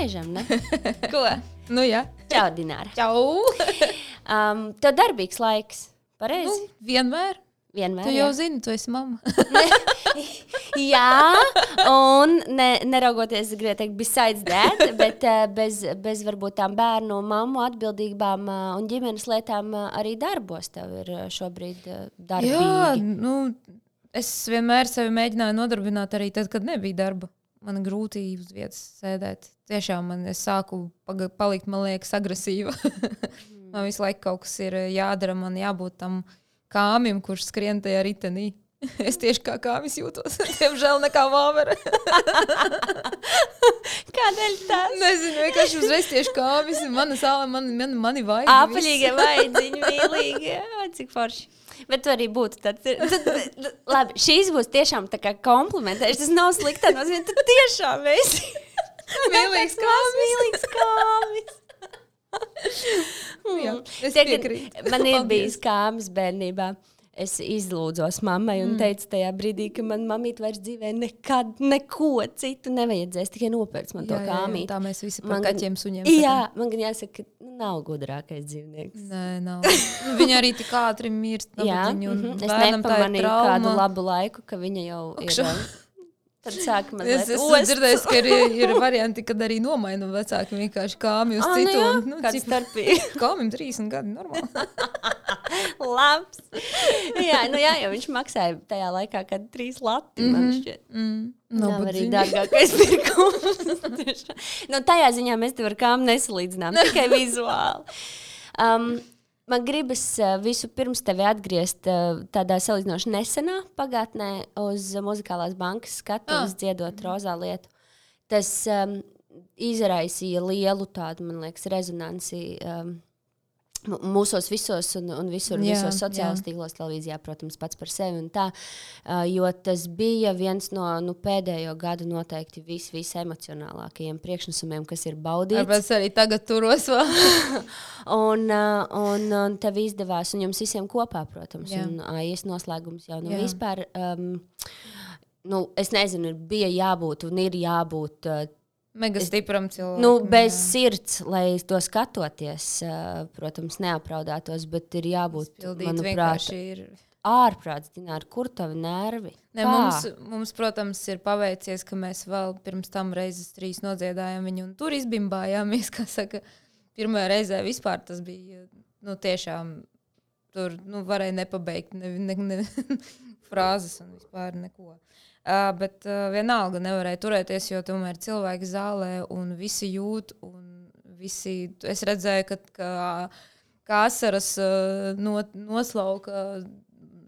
laižam, ne? Ko? Nu, jā. Čau, Dināra. Čau! Tev darbīgs laiks, pareizi? Vienmēr. Vienmēr, Tu jau zini, tu esi mamma. Jā, un neraugoties, gribēju teikt, besides that, bet bez varbūt tām bērnu, mammu atbildībām un ģimenes lietām arī darbos tev ir šobrīd darbīgi. Jā, es vienmēr sevi mēģināju nodarbināt arī tad, kad nebija darba. Man grūti uz vietas sēdēt. Tiešām es sāku palikt, man liekas, agresīva. Man visu laiku kaut kas ir jādara, man jābūt tam kāmim, kurš skrien tajā ritenī. Es tieši kā kāmis jūtos. Diemžēl nekā vāvera. Kādēļ tas? Nezinu, vienkārši uzreiz tieši kāmis. Mani vaigi. Apaļīgie vaidziņi, mīlīgi. Cik forši. Bet tu arī būtu tāds. Labi, šīs būs tiešām tā kā komplimentēšana. Tas nav slikta nozīmē. Tu tiešām esi. Mīlīgs kāmis. Mīlīgs kāmis. Jā, es piekrītu. Man ir bijis kāmis bērnībā. Es izlūdzos mammai un teicu tajā brīdī, ka man mamīte vairs dzīvē nekad neko citu nevajadzēs, tikai nopērts man to kāmīti. Tā mēs visi par kaķiem suņiem. Jā, man gan jāsaka, ka nav gudrākais dzīvnieks. Nē, nav. Viņa arī tik ātri mirst. Jā, es nepamanīju kādu labu laiku, ka viņa jau ir... Tad sāka mazliet Es dzirdēju, ka ir varianti, kad arī nomaina vecāki vienkārši kāmi uz citu. Nu, kāds starpīgi. Kāmim 30 gadi, normāli. Labs. Jā, jo viņš maksāja tajā laikā, kad 3 lati, man šķiet. Nav arī dārgākais pirkums. Tajā ziņā mēs te ar kāmu nesalīdzinām, tikai vizuāli. Man gribas visu pirms tevi atgriezt tādā salīdzinoši nesenā pagātnē uz Muzikālās bankas skatuves dziedot Rozā lietu. Tas izraisīja lielu tādu, man liekas, rezonanci mūsos visos un visos sociālos tīklos, televīzijā, protams, pats par sevi un tā, jo tas bija viens no pēdējo gadu noteikti visemocionālākajiem priekšnesumiem, kas ir baudīts. Tāpēc arī tagad turos vēl. un tev izdevās, un jums visiem kopā, protams, un AIS noslēgums jau vispār, es nezinu, bija jābūt un ir jābūt mega stipram cilvēkam. Bez sirds, lai to skatoties, protams, neapraudātos, bet ir jābūt, manuprāt, ārprāts, Dināra, kur tavi nervi? Mums, protams, ir paveicies, ka mēs vēl pirms tam reizes 3 nodziedājām viņu un tur izbimbājāmies, kā saka, pirmajā reizē vispār tas bija, tiešām, tur, varēja nepabeigt frāzes un vispār neko. Bet vienalga nevarēja turēties, jo tomēr cilvēki zālē un visi jūt un visi, es redzēju, ka asaras noslauka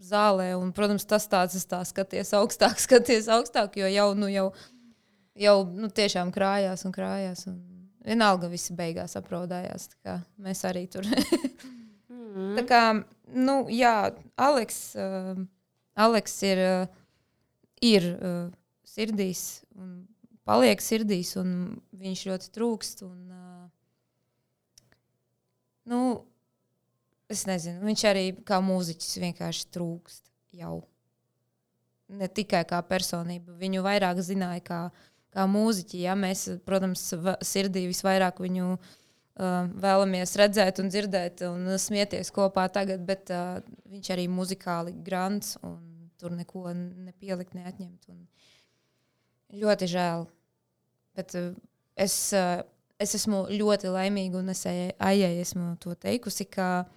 zālē un, protams, tas tāds skaties augstāk, jo jau tiešām krājās un vienalga visi beigās apraudājās, tā kā mēs arī tur. Tā kā, Aleks ir sirdīs un paliek sirdīs un viņš ļoti trūkst un es nezinu, viņš arī kā mūziķis vienkārši trūkst jau. Ne tikai kā personība, viņu vairāk zināja kā mūziķi, mēs, protams, sirdī visvairāk viņu vēlamies redzēt un dzirdēt un smieties kopā tagad, bet viņš arī muzikāli grants un tur neko nepielikt, neatņemt. Un ļoti žēl. Bet es esmu ļoti laimīga un es Aijai esmu to teikusi, ka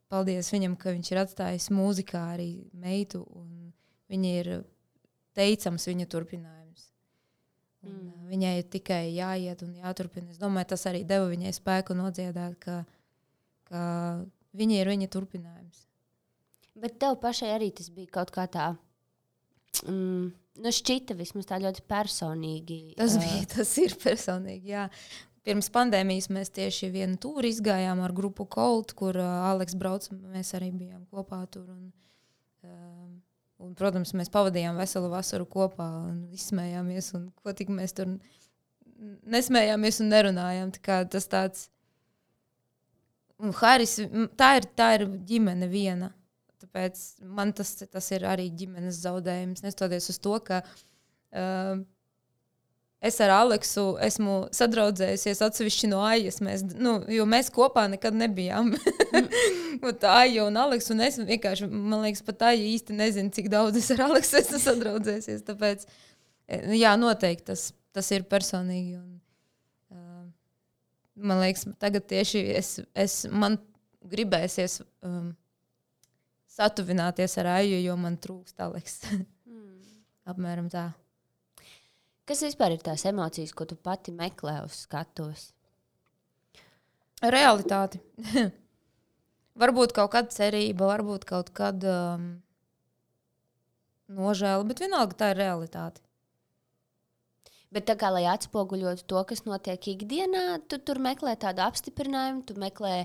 paldies viņam, ka viņš ir atstājis mūzikā arī meitu un viņa ir teicams viņa turpinājums. Un viņai ir tikai jāiet un jāturpina. Es domāju, tas arī deva viņai spēku nodziedāt, ka viņa ir viņa turpinājums. Bet tev pašai arī tas bija kaut kā tā, šķita vismaz tā ļoti personīgi. Tas ir personīgi, jā. Pirms pandēmijas mēs tieši vienu tūri izgājām ar grupu Colt, kur Aleks brauc, mēs arī bijām kopā tur. Un, protams, mēs pavadījām veselu vasaru kopā un izsmējāmies, un ko tik mēs tur nesmējāmies un nerunājām. Tā kā tas tāds... Un Haris, tā ir ģimene viena. Tāpēc man tas ir arī ģimenes zaudējums, nestoties uz to, ka es ar Aleksu esmu sadraudzējusies atsevišķi no Aijas, jo mēs kopā nekad nebijām. Aija un Aleks, un es vienkārši, man liekas, pat Aija īsti nezinu, cik daudz es ar Aleksu esmu sadraudzējusies, tāpēc, jā, noteikti tas ir personīgi, un man liekas, tagad tieši man gribēsies satuvināties ar Aiju, jo man trūkst Aleks. Apmēram tā. Kas vispār ir tās emocijas, ko tu pati meklē uz skatuves? Realitāti. Varbūt kaut kāda cerība, varbūt kaut kāda nožēla, bet vienalga tā ir realitāte. Bet tā kā, lai atspoguļotu to, kas notiek ikdienā, tu tur meklē tādu apstiprinājumu, tu meklē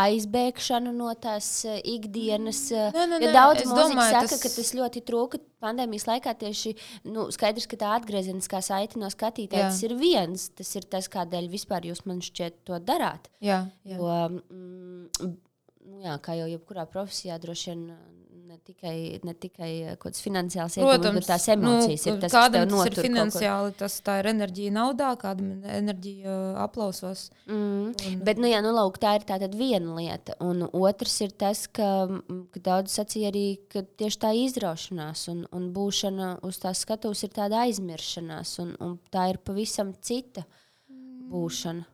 aizbēgšanu no tās ikdienas. Ja daudz mūziķi saka, ka tas ļoti trūka pandēmijas laikā tieši, skaidrs, ka tā atgriezeniskā saite no skatītāja, tas ir viens. Tas ir tas, kādēļ vispār jūs man šķiet to darāt. Jā. Jo, kā jau jebkurā profesijā droši vien ne tikai kaut kāds finansiāls ieguvums, bet tās emocijas ir tas, kas tev notur. Kādam tas ir finansiāli, tā ir enerģija naudā, kādam enerģija aplausos. Bet, lūk, tā ir tātad viena lieta. Un otrs ir tas, ka daudz sacīja arī, ka tieši tā izraušanās un būšana uz tās skatuves ir tāda aizmiršanās, un tā ir pavisam cita būšana.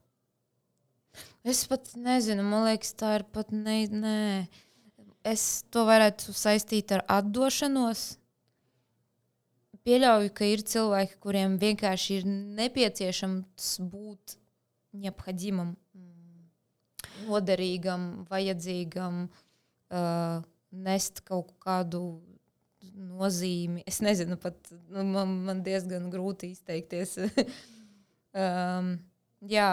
Es pat nezinu, man liekas, tā ir pat nē. Es to varētu saistīt ar atdošanos. Pieļauju, ka ir cilvēki, kuriem vienkārši ir nepieciešams būt neaphodimam, noderīgam, vajadzīgam, nest kaut kādu nozīmi. Es nezinu, pat man diezgan grūti izteikties. Jā,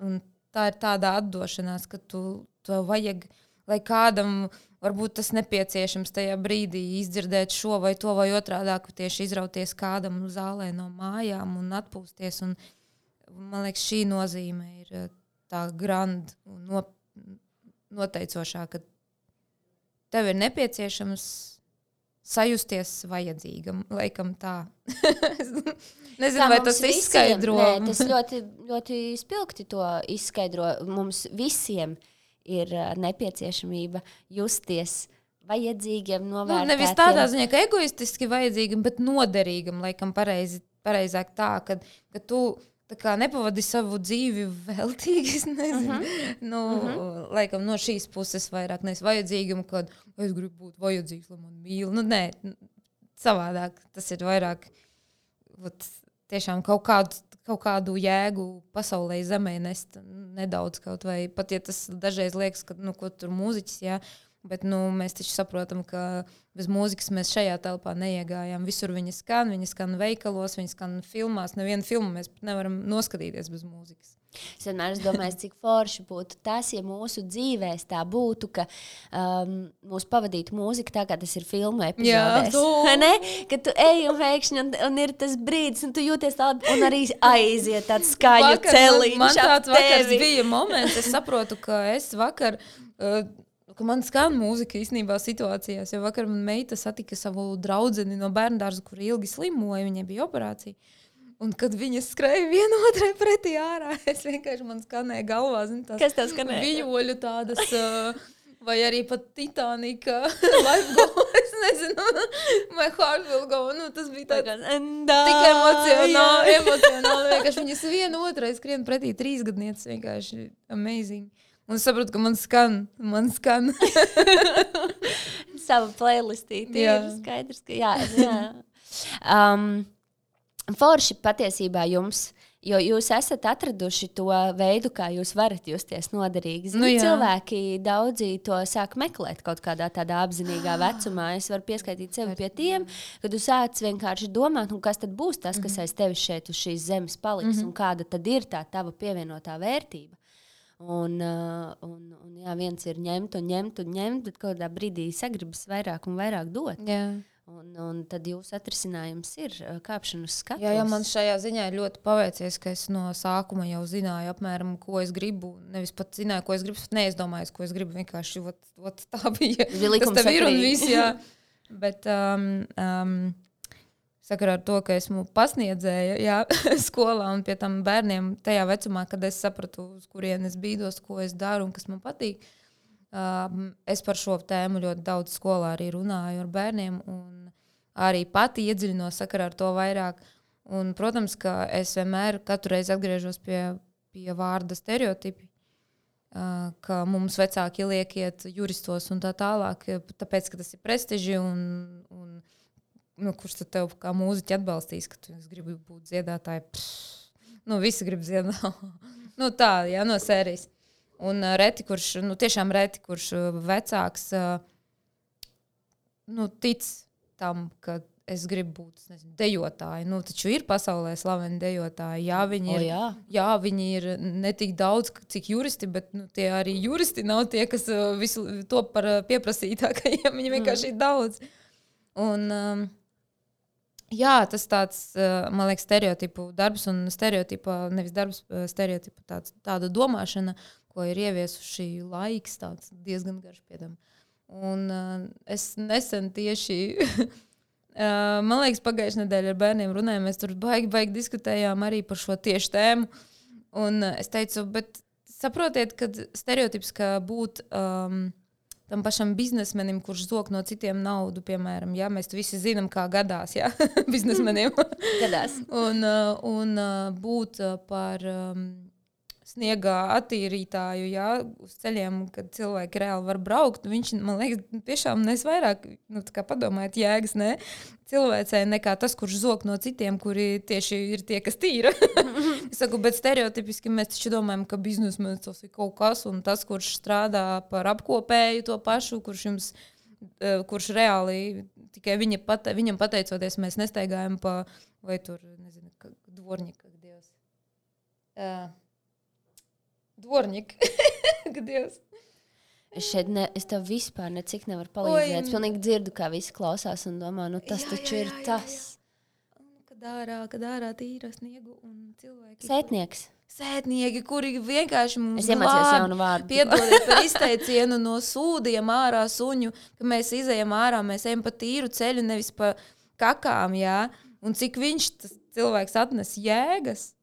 un tā ir tāda atdošanās, ka tu vajag, lai kādam varbūt tas nepieciešams tajā brīdī izdzirdēt šo vai to vai otrādāk, tieši izrauties kādam zālē no mājām un atpūsties. Un, man liekas, šī nozīme ir tā grand un noteicošā, ka tev ir nepieciešams sajusties vajadzīgam, laikam tā. Nezinu, vai tas izskaidro. Nē, tas ļoti, ļoti spilgti to izskaidro. Mums visiem ir nepieciešamība justies vajadzīgiem, novērtētiem. Nevis tādā ziņā, ka egoistiski vajadzīgam, bet noderīgam, laikam pareizāk tā, ka tu tā kā nepavadi savu dzīvi veltīgi, es nezinu. Laikam no šīs puses vairāk nevis vajadzīgam, kad es gribu būt vajadzīgs, lai man mīl. Nē, savādāk. Tas ir vairāk tiešām kaut kādu jēgu pasaulē zemē nest nedaudz kaut vai. Pat ja tas dažreiz liekas, ka ko tur mūziķis, jā, bet mēs taču saprotam, ka bez mūzikas mēs šajā telpā neiegājām. Visur viņa skan veikalos, viņa skan filmās. Nevienu filmu mēs nevaram noskatīties bez mūzikas. Es vienmēr domāju, cik forši būtu tas, ja mūsu dzīvēs tā būtu, ka mūs pavadītu mūzika tā, kā tas ir filmu epizodēs. Kad tu ej un pēkšņi un ir tas brīdis, un tu jūties tādu, un arī aiziet tāds skaļu celiņš. Man tāds vakars bija moments, es saprotu, ka es vakar, ka man skan mūzika īstenībā situācijās, jo vakar man meita satika savu draudzeni no bērndārza, kur ilgi slimoja, viņai bija operācija. Un kad viņas skrēja viena otrai pretī ārā, es vienkārši man skanēja galvā, tās kas tev skanēja? Vijoļu tādas, vai arī pat Titanika, Life Go, es nezinu, My Heart Will Go, tas bija tāds tik emocionāli, vienkārši viņas viena otrai skrien pretī 3 gadnieces, vienkārši amazing. Un es saprotu, ka man skan. Sava playlistīte ir skaidrs, ka jā. Forši patiesībā jums, jo jūs esat atraduši to veidu, kā jūs varat justies noderīgi. Cilvēki daudzi to sāk meklēt kaut kādā tādā apzinīgā vecumā. Es varu pieskaitīt sevi pie tiem, kad tu sāc vienkārši domāt, kas tad būs tas, kas aiz tevis šeit uz šīs zemes paliks, un kāda tad ir tā tava pievienotā vērtība. Un viens ir ņemt, bet kaut kādā brīdī sagribas vairāk un vairāk dot. Jā. Un tad jūsu atrisinājums ir kāpšana uz skatuves. Jā, man šajā ziņā ir ļoti paveicies, ka es no sākuma jau zināju apmēram, ko es gribu. Nevis pat zināju, ko es gribu, neizdomāju, ko es gribu. Vienkārši tā bija. Tas tev ir un viss, jā. Bet sakarā ar to, ka esmu pasniedzēja skolā un pie tam bērniem tajā vecumā, kad es sapratu, uz kurien es bīdos, ko es daru un kas man patīk. Es par šo tēmu ļoti daudz skolā arī runāju ar bērniem un arī pati iedziļinos sakarā ar to vairāk. Un, protams, ka es vienmēr katru reizi atgriežos pie vārda stereotipi, ka mums vecāki liek iet juristos un tā tālāk, tāpēc, ka tas ir prestiži un kurš tad tev kā mūziķi atbalstīs, ka tu gribi būt dziedātāji. Visi grib dziedāt. Tā, jā, no sērijas. Un tiešām reti, kurš vecāks tic tam, ka es gribu būt dejotāji. Taču ir pasaulē slaveni dejotāji. Jā, viņi ir ne tik daudz, cik juristi, bet tie arī juristi nav tie, kas visu to par pieprasītākajiem. Viņi vienkārši ir daudz. Un, jā, tas tāds, man liekas, stereotipu darbs un nevis darbs, stereotipu tāda domāšana, ko ir ieviesuši laiks, tāds diezgan garš piedam. Un es nesen tieši, man liekas, pagājušajā nedēļā ar bērniem runājām, mēs tur baigi diskutējām arī par šo tieši tēmu. Un es teicu, bet saprotiet, ka stereotips, ka būt tam pašam biznesmenim, kurš zog no citiem naudu, piemēram, ja mēs visi zinām, kā gadās, ja, biznesmenim. Gadās. Un būt par sniegā attīrītāju, jā, uz ceļiem, kad cilvēki reāli var braukt, viņš, man liekas, tiešām nes vairāk, kā padomājat, jēgas, ne, cilvēcē nekā tas, kurš zog no citiem, kuri tieši ir tie, kas tīra. Es saku, bet stereotipiski mēs taču domājam, ka biznesmenis tas ir kaut kas, un tas, kurš strādā par apkopēju to pašu, kurš reāli tikai viņam pateicoties, mēs nestaigājam pa, vai tur, nezinu, dvorņika, Dievs. Dvorņika, Dievs. Es tev vispār necik nevaru palīdzēt. Es pilnīgi dzirdu, kā visi klausās un domā, tas taču ir tas. Kad ārā tīra sniegu un cilvēki. Sētnieki, kuri vienkārši mums piedodiet par izteicienu no sūdiem ārā suņu, ka mēs izejam ārā, mēs ejam pa tīru ceļu, nevis pa kakām, jā. Un cik viņš tas cilvēks atnes jēgas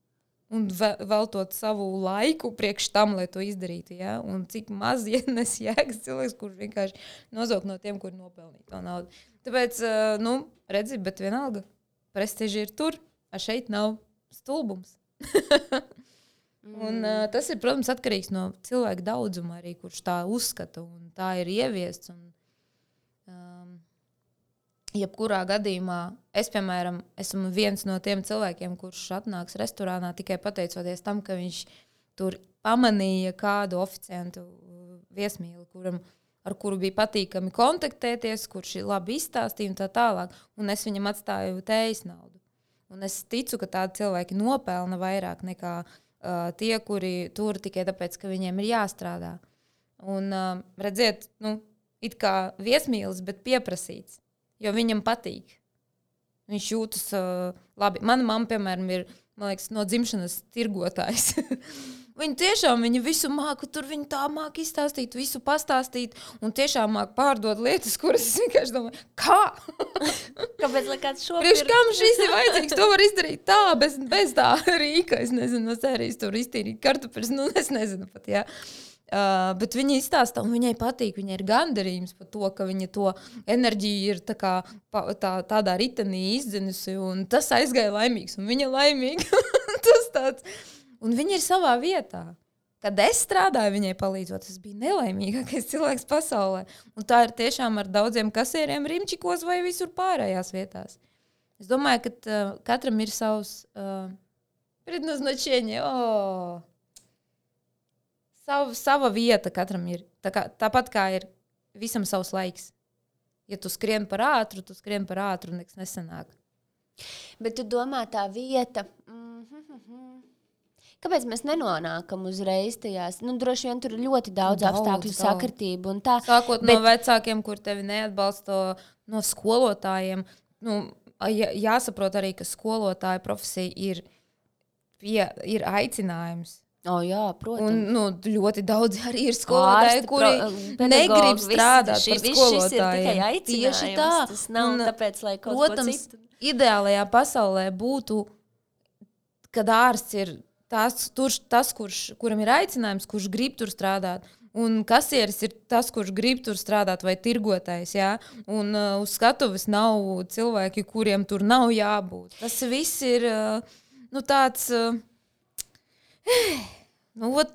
un veltot savu laiku priekš tam, lai to izdarītu, jā. Un cik maz ienes jēgas cilvēks, kurš vienkārši nozog no tiem, kuri nopelnīja to naudu. Tāpēc, redzi, bet vienalga. Prestiži ir tur, a šeit nav stulbums. Un tas ir, protams, atkarīgs no cilvēka daudzuma arī, kurš tā uzskata un tā ir ieviests. Un, jebkurā gadījumā es, piemēram, esmu viens no tiem cilvēkiem, kurš atnāks restorānā tikai pateicoties tam, ka viņš tur pamanīja kādu oficiantu viesmīli, ar kuru bija patīkami kontaktēties, kurš labi izstāstīja un tā tālāk. Un es viņam atstāju tējas naudu. Un es ticu, ka tādi cilvēki nopelna vairāk nekā tie, kuri tur tikai tāpēc, ka viņiem ir jāstrādā. Un redziet, it kā viesmīlis, bet pieprasīts, jo viņam patīk. Viņš jūtas labi. Mana mamma, piemēram, ir, man liekas, no dzimšanas tirgotājs. Viņa tiešām visu māku, tur viņa tā māku izstāstīt, visu pastāstīt un tiešām māku pārdot lietas, kuras es vienkārši domāju, kā? Kāpēc, lai kāds šo pirkt? Kam šis ir vajadzīgs? To var izdarīt tā, bez tā rīka. Es nezinu, no sērijas tur iztīrīt kartupeļus, es nezinu pat, jā. Bet viņa izstāsta un viņai patīk, viņai ir gandarījums par to, ka viņa to enerģiju ir tādā ritenī izdzinusi un tas aizgāja laimīgs un viņa laimīga. Tas tāds... Un viņa ir savā vietā. Kad es strādāju viņai palīdzot, es biju nelaimīgākais cilvēks pasaulē. Un tā ir tiešām ar daudziem kasieriem Rimčikos vai visur pārējās vietās. Es domāju, ka katram ir savs предназначение. Sava vieta katram ir. Tāpat kā ir visam savs laiks. Ja tu skrien par ātru, nekas nesanāk. Bet tu domā tā vieta... Kāpēc mēs nenonākam uzreiz tajās? Droši vien tur ir ļoti daudz apstākļu sakritību un tā. Sākot no vecākiem, kur tevi neatbalsta, no skolotājiem. Jāsaprot arī, ka skolotāja profesija ir aicinājums. Jā, protams. Un ļoti daudz arī ir skolotāji, kuri negrib strādāt par skolotājiem. Tieši tā. Tas nav tāpēc, lai kaut protams, ko citu. Ideālajā pasaulē būtu, kad ārsts ir tas, kuram ir aicinājums, kurš grib tur strādāt. Un kasieris ir tas, kurš grib tur strādāt, vai tirgotājs. Jā? Un uz skatuves nav cilvēki, kuriem tur nav jābūt. Tas viss ir tāds...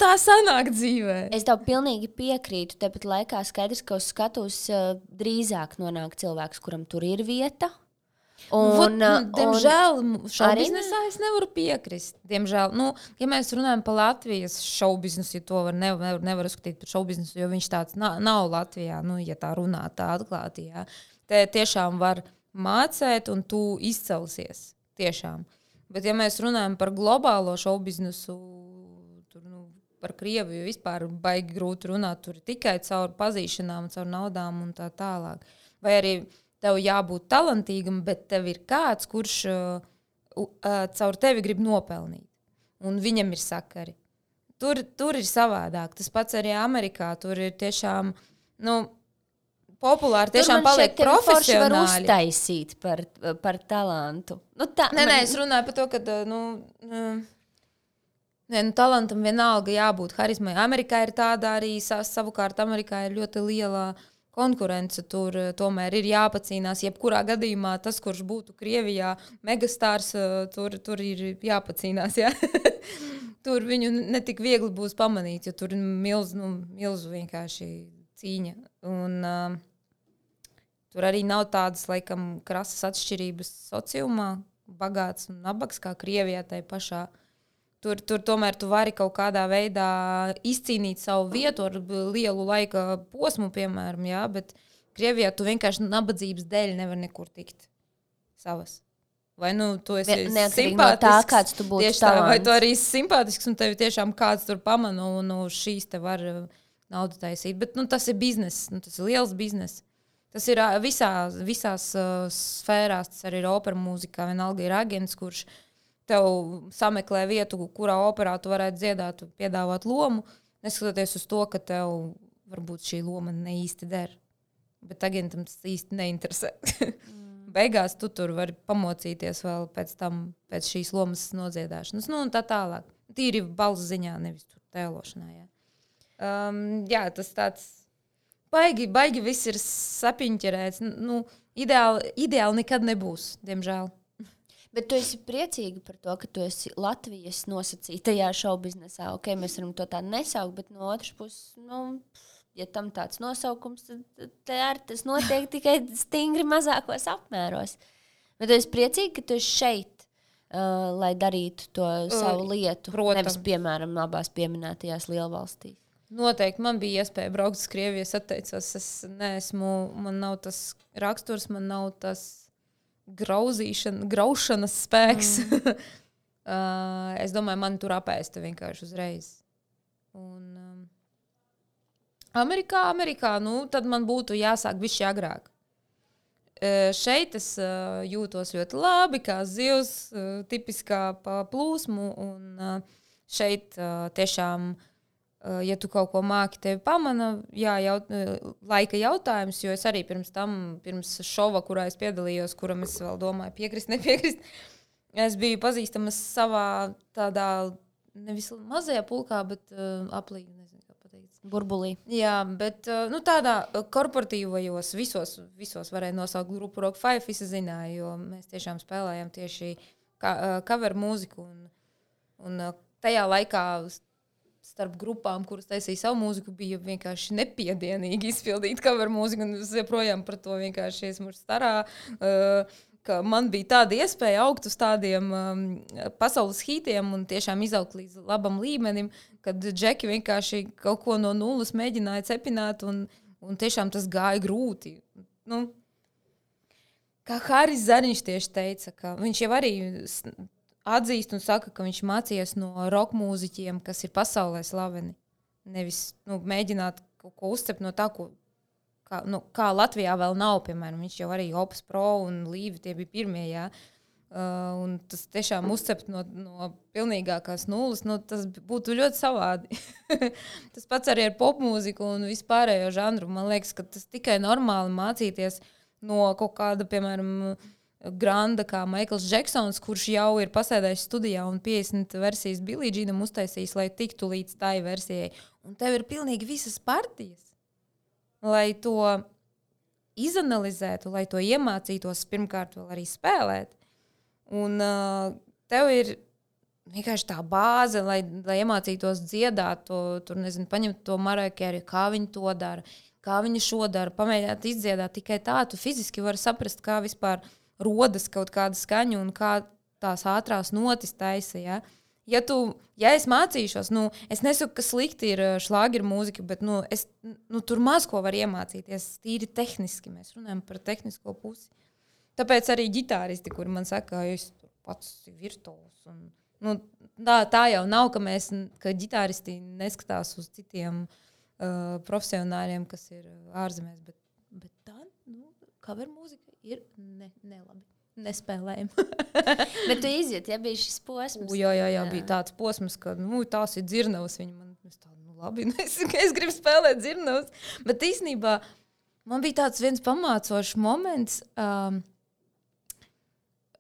tā sanāk dzīvē. Es tev pilnīgi piekrītu. Tāpat laikā skaidrs, ka uz skatuves drīzāk nonāk cilvēks, kuram tur ir vieta. Diemžēl šoubiznesā es nevaru piekrist. Diemžēl, ja mēs runājam par Latvijas šoubiznesu, ja to nevar uzskatīt par šoubiznesu, jo viņš tāds nav Latvijā, ja tā runā tā atklāti. Jā. Te tiešām var mācēt un tu izcelsies. Tiešām. Bet ja mēs runājam par globālo šoubiznesu, par Krieviju vispār baigi grūti runāt, tur tikai caur pazīšanām, caur naudām un tā tālāk. Vai arī tev jābūt talantīgam, bet tev ir kāds, kurš caur tevi grib nopelnīt. Un viņam ir sakari. Tur ir savādāk. Tas pats arī Amerikā. Tur ir tiešām, populāri tiešām paliek profesionāli. Tur man var uztaisīt par talantu. Es runāju par to, ka, talantam vienalga jābūt harizmai. Amerikā ir tāda arī, savukārt Amerikā ir ļoti liela konkurence. Tur tomēr ir jāpacīnās. Jebkurā gadījumā tas, kurš būtu Krievijā megastārs, tur ir jāpacīnās. Jā? Tur viņu netik viegli būs pamanīt, jo tur ir milzu vienkārši cīņa. Un tur arī nav tādas, laikam, krasas atšķirības sociumā, bagāts un nabaks, kā Krievijā tai pašā. Tur tomēr tu vari kaut kādā veidā izcīnīt savu vietu ar lielu laika posmu, piemēram, jā, bet Krievijā tu vienkārši nabadzības dēļ nevar nekur tikt savas. Vai tu esi simpātisks, no tā, kāds tu būtu talants. Vai tu arī simpātisks un tevi tiešām kāds tur pamana un šīs te var naudu taisīt. Bet tas ir bizness, tas ir liels bizness. Tas ir visās sfērās, tas arī ir opera mūzikā, vienalga ir aģents, kurš tev sameklē vietu, kurā operā tu varētu dziedāt, piedāvāt lomu, neskatoties uz to, ka tev varbūt šī loma ne īsti der. Bet agentam tas īsti neinteresē. Beigās tu tur vari pamocīties vēl pēc šīs lomas nodziedāšanas. Un tā tālāk. Tīri balss ziņā, nevis tur tēlošanā. Jā, tas tāds baigi viss ir sapiņķerēts. Ideāli nekad nebūs, diemžēl. Bet tu esi priecīga par to, ka tu esi Latvijas nosacītajā šoubiznesā. Ok, mēs varam to tā nesaukt, bet no otras puses, ja tam tāds nosaukums, tad tas notiek tikai stingri mazākos apmēros. Bet tu esi priecīga, ka tu esi šeit, lai darītu to savu lietu. Protams. Nevis, piemēram, abās pieminētajās lielvalstīs. Noteikti man bija iespēja braukt uz Krieviju, es atteicos. Man nav tas raksturs, man nav tas graušanas spēks. Es domāju, man tur apēsta vienkārši uzreiz. Un Amerikā, tad man būtu jāsāk bišķi agrāk. Šeit es jūtos ļoti labi, kā zivs, tipiskā plūsmu, un šeit tiešām, ja tu kaut ko māki, tevi pamana, laika jautājums, jo es arī pirms šova, kurā es piedalījos, kuram es vēl domāju piekrist, nepiekrist, es biju pazīstama savā tādā, nevis mazajā pulkā, bet aplīgi, nezinu, kā pateikt. Burbulī. Jā, bet tādā korporatīvajos visos varēja nosaukt grupu Rock 5, visi zināja, jo mēs tiešām spēlējām tieši cover mūziku, un tajā laikā starp grupām, kuras taisīja savu mūziku, bija vienkārši nepiedienīgi izpildīt cover mūziku, un es joprojām par to vienkārši esmu starā, ka man bija tāda iespēja augt uz tādiem pasaules hītiem un tiešām izaugt līdz labam līmenim, kad džeki vienkārši kaut ko no nulles mēģināja cepināt, un tiešām tas gāja grūti. Kā Haris Zariņš tieši teica, ka viņš jau arī atzīst un saka, ka viņš mācījies no rock mūziķiem, kas ir pasaulē slaveni. Nevis mēģināt kaut ko uzcept no tā, kā Latvijā vēl nav, piemēram. Viņš jau arī Opus Pro un Līvi, tie bija pirmie, jā. un tas tiešām uzcept no pilnīgākās nulles, tas būtu ļoti savādi. Tas pats arī ar popmūziku un vispārējo žanru. Man liekas, ka tas tikai normāli mācīties no kaut kāda, piemēram, granda kā Maikls Džeksons, kurš jau ir pasēdējis studijā un 50 versijas Billie Jeanam uztaisījis, lai tiktu līdz tai versijai. Un tev ir pilnīgi visas partijas, lai to izanalizētu, lai to iemācītos pirmkārt vēl arī spēlēt. Un tev ir vienkārši tā bāze, lai iemācītos dziedāt, paņemt to Mariah Carey, kā viņi to dara, kā viņi šo dara, pamēģināt izdziedāt. Tikai tā tu fiziski vari saprast, kā vispār rodas kaut kāda skaņa un kā tās ātrās notis taisa. Ja? Ja es mācīšos, es nesaku, ka slikti ir šlāgeru mūzika, bet es tur maz ko var iemācīties. Tīri tehniski mēs runājam par tehnisko pusi. Tāpēc arī ģitāristi, kuri man saka, ka es pats esmu virtuos. Tā jau nav, ka ģitāristi neskatās uz citiem profesionāļiem, kas ir ārzemēs. Bet tā, cover mūzika ir nelabi. Nespēlējama. Bet tu iziet, ja bija šis posms? Jā, bija tāds posms, ka tās ir dzirnavas. Viņi man tā, labi, es gribu spēlēt dzirnavas. Bet īstenībā man bija tāds viens pamācošs moments.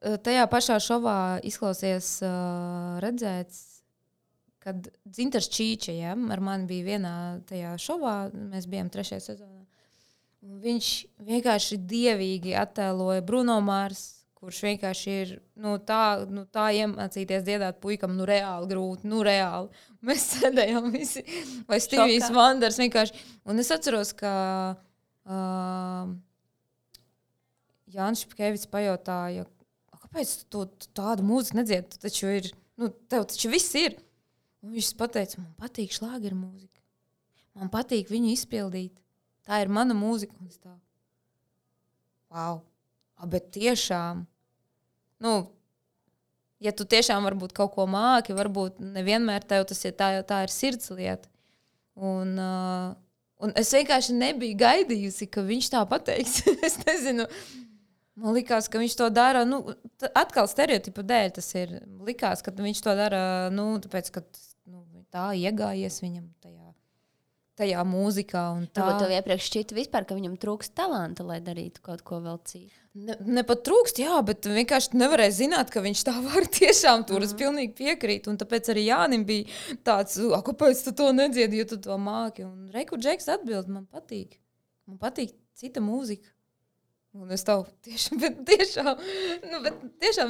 Tajā pašā šovā izklausies redzēts, kad Dzintars Čīča, ja, ar mani bija vienā tajā šovā, mēs bijām 3. sezonā. Viņš vienkārši dievīgi attēloja Bruno Mars, kurš vienkārši ir tā iemācīties dziedāt puikam, reāli grūti, reāli. Mēs sēdējām visi, vai Stīvijs Vanders vienkārši. Un es atceros, ka Jānis Špkēvits pajautāja, kāpēc tu tādu mūziku nedziedi? Tu taču ir, tev taču viss ir. Un viņš pateica, man patīk šlāgeru mūzika. Man patīk viņu izpildīt. Tā ir mana mūzika. Un es tā, wow. Bet tiešām, ja tu tiešām varbūt kaut ko māki, varbūt nevienmēr tev tas ir, tā ir sirds lieta. Un es vienkārši nebiju gaidījusi, ka viņš tā pateiks. Es nezinu. Man likās, ka viņš to dara, atkal stereotipu dēļ tas ir. Likās, ka viņš to dara, tāpēc, ka tā iegājies viņam tajā mūzikā. Un tā. Tev iepriekš šķita vispār, ka viņam trūkst talanta, lai darītu kaut ko vēl citu. Ne pat trūkst, jā, bet vienkārši nevarēja zināt, ka viņš tā var tiešām tur. Es pilnīgi piekrītu. Un tāpēc arī Jānim bija tāds, kāpēc tu to nedziedi, jo tu to māki. Un Reiku Džeks atbild, man patīk. Man patīk cita mūzika. Un es tev tiešām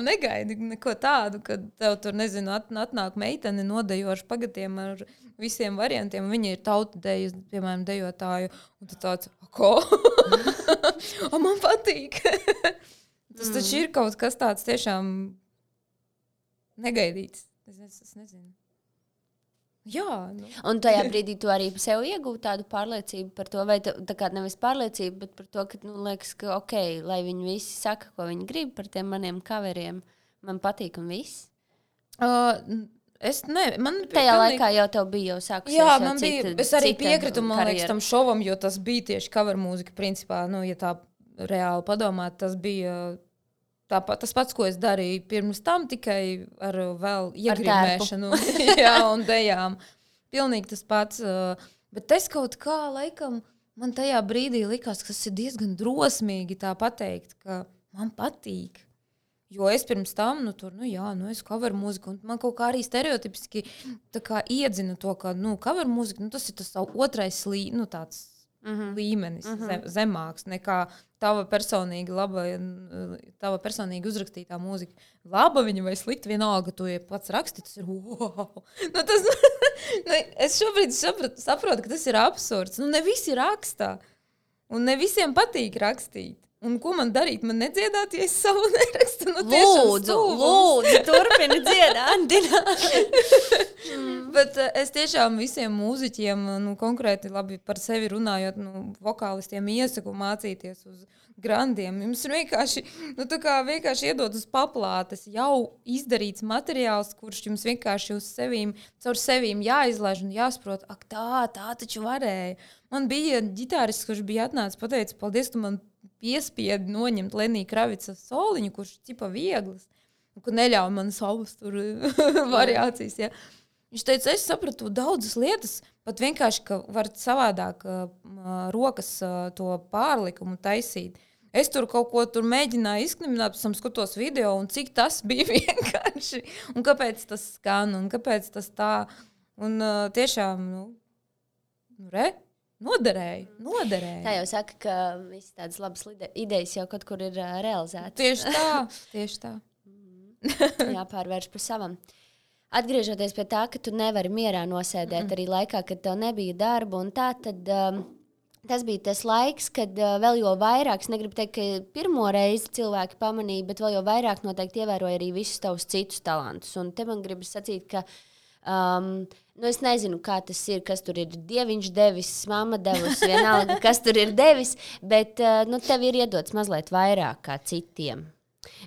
negaidu neko tādu, kad tev tur, nezinu, atnāk meitene nodejoši pagatiem ar visiem variantiem. Viņa ir tautadejas, piemēram, dejotāju. Un tu tāds, ko? Man patīk. Tas taču ir kaut kas tāds tiešām negaidīts. Es nezinu. Jā. Un tajā brīdī tu arī sev iegūti tādu pārliecību par to, vai tā kā nevis pārliecību, bet par to, ka, liekas, ka ok, lai viņi visi saka, ko viņi grib par tiem maniem coveriem, man patīk un viss. Tajā laikā jau tev bija jau sākusies. Jā, man bija, es arī piekritu, man liekas, tam šovam, jo tas bija tieši cover mūzika, principā, ja tā reāli padomāt, tas bija tas pats, ko es darīju pirms tam, tikai ar vēl iegrimēšanu un dejām. Pilnīgi tas pats. Bet es kaut kā, laikam, man tajā brīdī likās, ka tas ir diezgan drosmīgi tā pateikt, ka man patīk. Jo es pirms tam, es cover mūziku, un man kaut kā arī stereotipiski tā kā iedzinu to, ka, cover mūzika, tas ir tas otrais tāds līmenis, zemāks nekā tava personīgi uzrakstītā mūzika. Laba viņa vai slikta, vienalga, tu pats raksti, tas ir wow. Es šobrīd saprotu, ka tas ir absurds. Ne visi rakstā, un ne visiem patīk rakstīt. Un ko man darīt? Man nedziedāt, ja es savu nerakstu? Lūdzu, turpini dziedāt, Dina. Bet es tiešām visiem mūziķiem, konkrēti labi par sevi runājot, vokālistiem iesaku mācīties uz grandiem. Jums ir vienkārši iedot uz paplātes jau izdarīts materiāls, kurš jums vienkārši caur sevīm jāizlaiž un jāsaprot, tā taču varēja. Man bija ģitārists, kurš bija atnācis, pateica, paldies, tu man piespiedi noņemt Lenija Kravica soliņu, kurš ir cipa vieglas. ka neļauj man savas tur variācijas. Ja. Viņš teica, es sapratu daudzas lietas, pat vienkārši, ka var savādāk rokas to pārlikumu taisīt. Es tur kaut ko tur mēģināju izknimināt, pēc tam skatos video, un cik tas bija vienkārši. Un kāpēc tas skan, un kāpēc tas tā. Un tiešām, noderēja. Tā jau saka, ka visas tādas labas idejas jau kaut kur ir realizētas. Tieši tā. Jāpārvērš par savam. Atgriežoties pie tā, ka tu nevari mierā nosēdēt arī laikā, kad tev nebija darba un tā, tad tas bija tas laiks, kad vēl jau vairāk, es negribu teikt, ka pirmo reizi cilvēki pamanīja, bet vēl jau vairāk noteikti ievēroja arī visus tavus citus talantus. Un te man gribas sacīt, ka es nezinu, kā tas ir, kas tur ir dieviņš devis, mamma devusi, vienalga, kas tur ir devis, bet tev ir iedots mazliet vairāk kā citiem.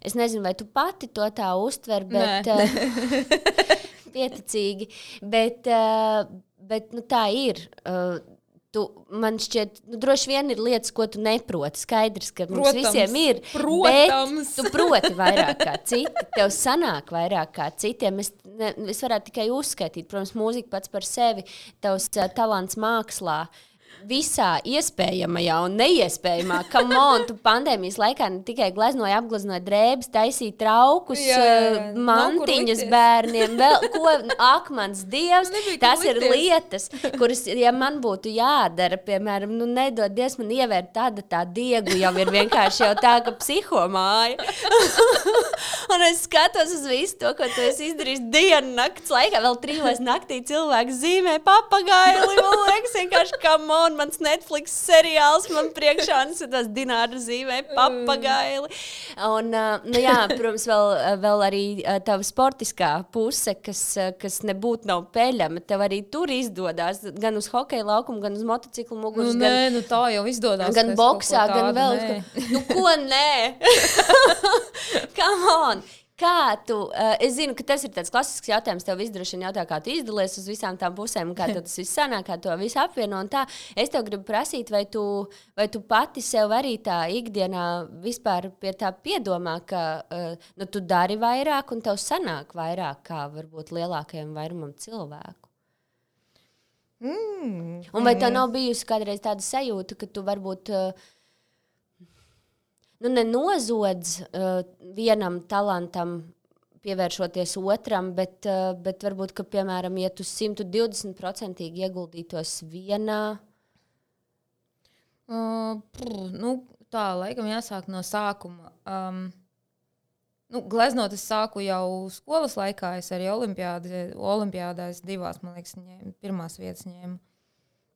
Es nezinu, vai tu pati to tā uztver, bet pieticīgi, bet tā ir. Man šķiet, droši vien ir lietas, ko tu neproti. Skaidrs, ka mums visiem ir, bet tu proti vairāk kā citi. Tev sanāk vairāk kā citiem. Es varētu tikai uzskaitīt, protams, mūzika pats par sevi, tavs talants mākslā. Visā iespējamajā un neiespējamā. Come on, tu pandēmijas laikā ne tikai apgleznoja drēbes, taisīja traukus, mantiņas bērniem, vēl ko, akmens dievs. Tas ir lietas, kuras, ja man būtu jādara, piemēram, nedod Dievs man ievērt tā diegu, jau ir vienkārši jau tā, ka psihomāja. Un es skatos uz visu to, ko tu esi izdarījis dienu nakts laikā, vēl 3 naktī cilvēks zīmē papagaili, man liekas, vienkārši come on. Mans Netflix seriāls man priekšā, un tas Dināra zīmē papagaili. Un, protams, vēl arī tava sportiskā puse, kas nebūtu nav peļama. Tev arī tur izdodās, gan uz hokeja laukumu, gan uz motociklu muguras. Tā jau izdodās. Gan boksā, gan vēl. Ko nē? Come on! Kā tu, es zinu, ka tas ir tāds klasisks jautājums, tev droši vien jautā, kā tu izdalies uz visām tām pusēm, kā tas viss sanāk, kā to visu apvieno un tā. Es tev gribu prasīt, vai tu pati sev arī tā ikdienā vispār pie tā piedomā, ka tu dari vairāk un tev sanāk vairāk kā varbūt lielākajam vairumam cilvēku. Un vai tev nav bijusi kādreiz tāda sajūta, ka tu varbūt nenozodz vienam talantam, pievēršoties otram, bet varbūt, ka, piemēram, ja tu 120% ieguldītos vienā? Tā, laikam jāsāk no sākuma. Gleznot es sāku jau skolas laikā, es arī olimpiādās 2, man liekas, pirmās vietas ņēmu.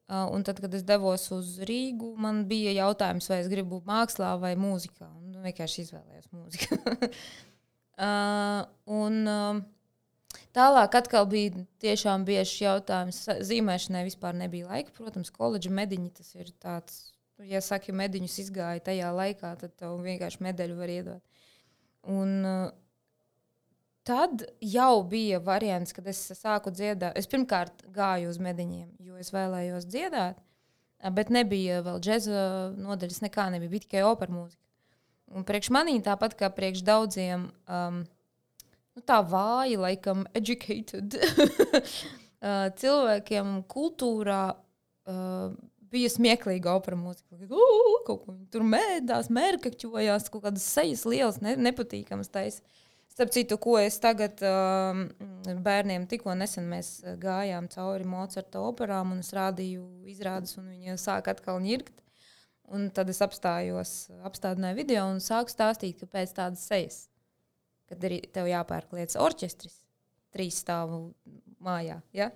Un tad, kad es devos uz Rīgu, man bija jautājums, vai es gribu mākslā vai mūzikā. Un vienkārši izvēlējos mūziku. Tālāk atkal bija tiešām biežs jautājums. Zīmēšanai vispār nebija laika. Protams, koledža mediņi tas ir tāds, ja saki, mediņus izgāja tajā laikā, tad tev vienkārši medaļu var iedot. Un tad jau bija variants, kad es sāku dziedāt. Es pirmkārt gāju uz mediņiem, jo es vēlējos dziedāt, bet nebija vēl džeza nodaļas, nekā nebija, bija tikai opera mūzika. Un priekš manī, tāpat kā priekš daudziem, tā vāji, laikam, educated cilvēkiem kultūrā bija smieklīga opera mūzika. Kaut ko tur mēdās, mērkaķojās, kaut kādas sejas lielas, nepatīkamas taisa. Starp citu, ko es tagad bērniem tikko nesen mēs gājām cauri Mocarta operām un es rādīju izrādes un viņi sāk atkal ņirkt. Un tad es apstādināju video un sāku stāstīt, ka pēc tādas sejas, kad arī tev jāpērk lietas orķestris, 3 stāvu mājā, ja?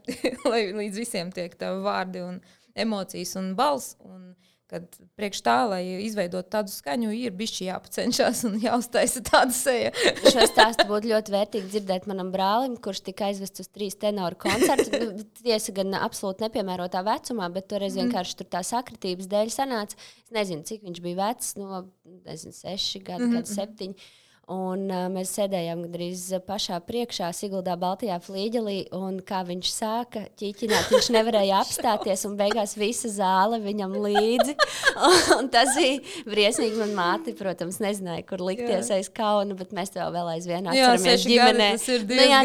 Lai līdz visiem tiek tev vārdi un emocijas un balss. Un kad priekš tā, lai izveidot tādu skaņu, ir bišķi jāpacenšās un jāuztaisa tāda seja. Šo stāstu būtu ļoti vērtīgi dzirdēt manam brālim, kurš tika aizvests uz 3 tenoru koncertu. Tiesa gan absolūti nepiemērotā vecumā, bet toreiz vienkārši tur tā sakritības dēļ sanāca. Es nezinu, cik viņš bija vecs, 6 gadi, 7. un mēs sēdējām gandrīz pašā priekšā Siguldā Baltajā flīģelī, un kā viņš sāka ķiķināt, viņš nevarēja apstāties, un beigās visa zāle viņam līdzi. Un tas bija briesmīgi. Man māte, protams, nezināja, kur likties aiz kauna, bet mēs to vēl aizvien atceramies ģimenē.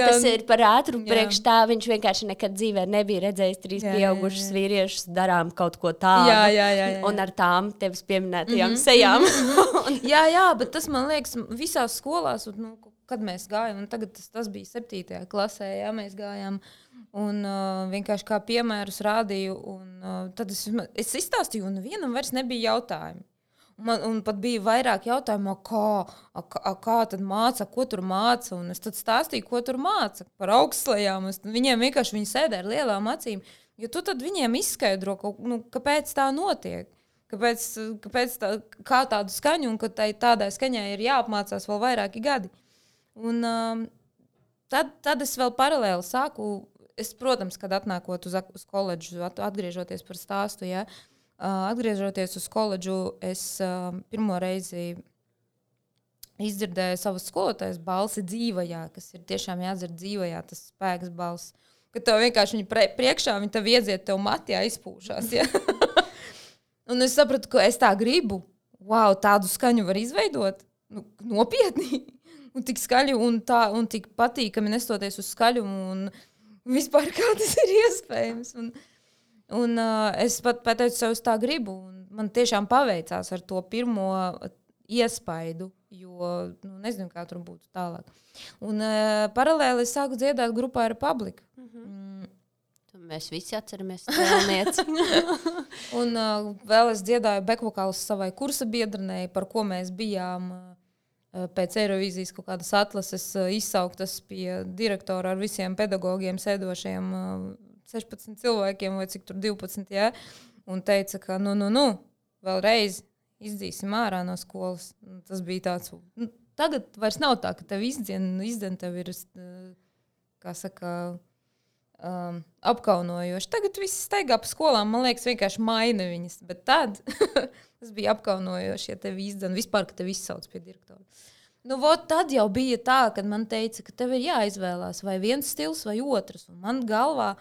Tas ir par ātru priekš tā, viņš vienkārši nekad dzīvē nebija redzējis 3 pieaugušus vīriešus, darām kaut ko tādu. Jā. Un ar tām tevis pieminētajām sejām. jā, bet tas man liekas visās skolās, un, kad mēs gājām, un tagad tas bija 7. klasē, jā, mēs gājām, un vienkārši kā piemērus rādīju, un tad es izstāstīju, un vienam vairs nebija jautājumi. Un pat bija vairāk jautājumu, kā tad māca, ko tur māca, un es tad stāstīju, ko tur māca par augstslējām. Viņiem vienkārši viņi sēdē ar lielām acīm, jo tu tad viņiem izskaidro, kāpēc tā notiek. Kāpēc kā tādu skaņu, un ka tādai skaņai ir jāapmācās vēl vairāki gadi. Un tad es vēl paralēli sāku, protams, kad atnākot uz koledžu, atgriežoties par stāstu, ja, atgriežoties uz koledžu, es pirmo reizi izdzirdēju savas skolotājas balsi dzīvajā, kas ir tiešām jādzird dzīvajā, tas spēks balss. Kad tev vienkārši viņa priekšā, viņa tev iedziet, tev matijā izpūšās, ja. Un es sapratu, ka es tā gribu. Wow, tādu skaņu var izveidot. Nopietni. Un tik skaļi un tik patīkami nestoties uz skaļumu. Un vispār kā tas ir iespējams. Un es pat pateicu sev, es tā gribu. Un man tiešām paveicās ar to pirmo iespaidu. Jo nezinu, kā tur būtu tālāk. Un paralēli es sāku dziedāt grupā Republika. Mēs visi atceramies Tēlnieci. Un vēl es dziedāju bekvokālus savai kursa biedrenei, par ko mēs bijām pēc Eirovīzijas kaut kādas atlases izsauktas pie direktora ar visiem pedagogiem sēdošiem 16 cilvēkiem vai cik tur 12, ja? Un teica, ka vēlreiz izdzīsim ārā no skolas. Tas bija tāds, tagad vairs nav tā, ka tev izdzen tev ir, kā saka, apkaunojoši. Tagad viss staigā pa skolām, man liekas, vienkārši maina viņas, bet tad tas bija apkaunojoši, ja tevi izdzen, vispār, ka tevi izsauc pie direktora. Tad jau bija tā, kad man teica, ka tev ir jāizvēlās vai viens stils vai otrs, un man galvā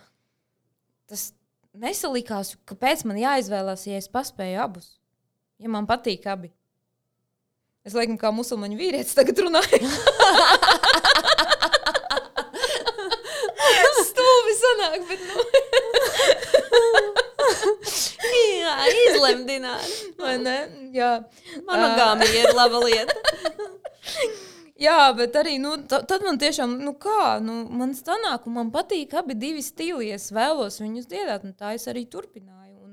tas nesalikās, kāpēc man jāizvēlās, ja es paspēju abus, ja man patīk abi. Es laikam kā musulmaņu vīrietis tagad runāju. Stulbi sanāk, bet Jā, izlemdināri. Vai ne? Jā. Monogāmija ir laba lieta. Jā, bet arī, tad man tiešām, man sanāk, un man patīk abi divi stili, es vēlos viņus dziedāt, un tā es arī turpināju. Un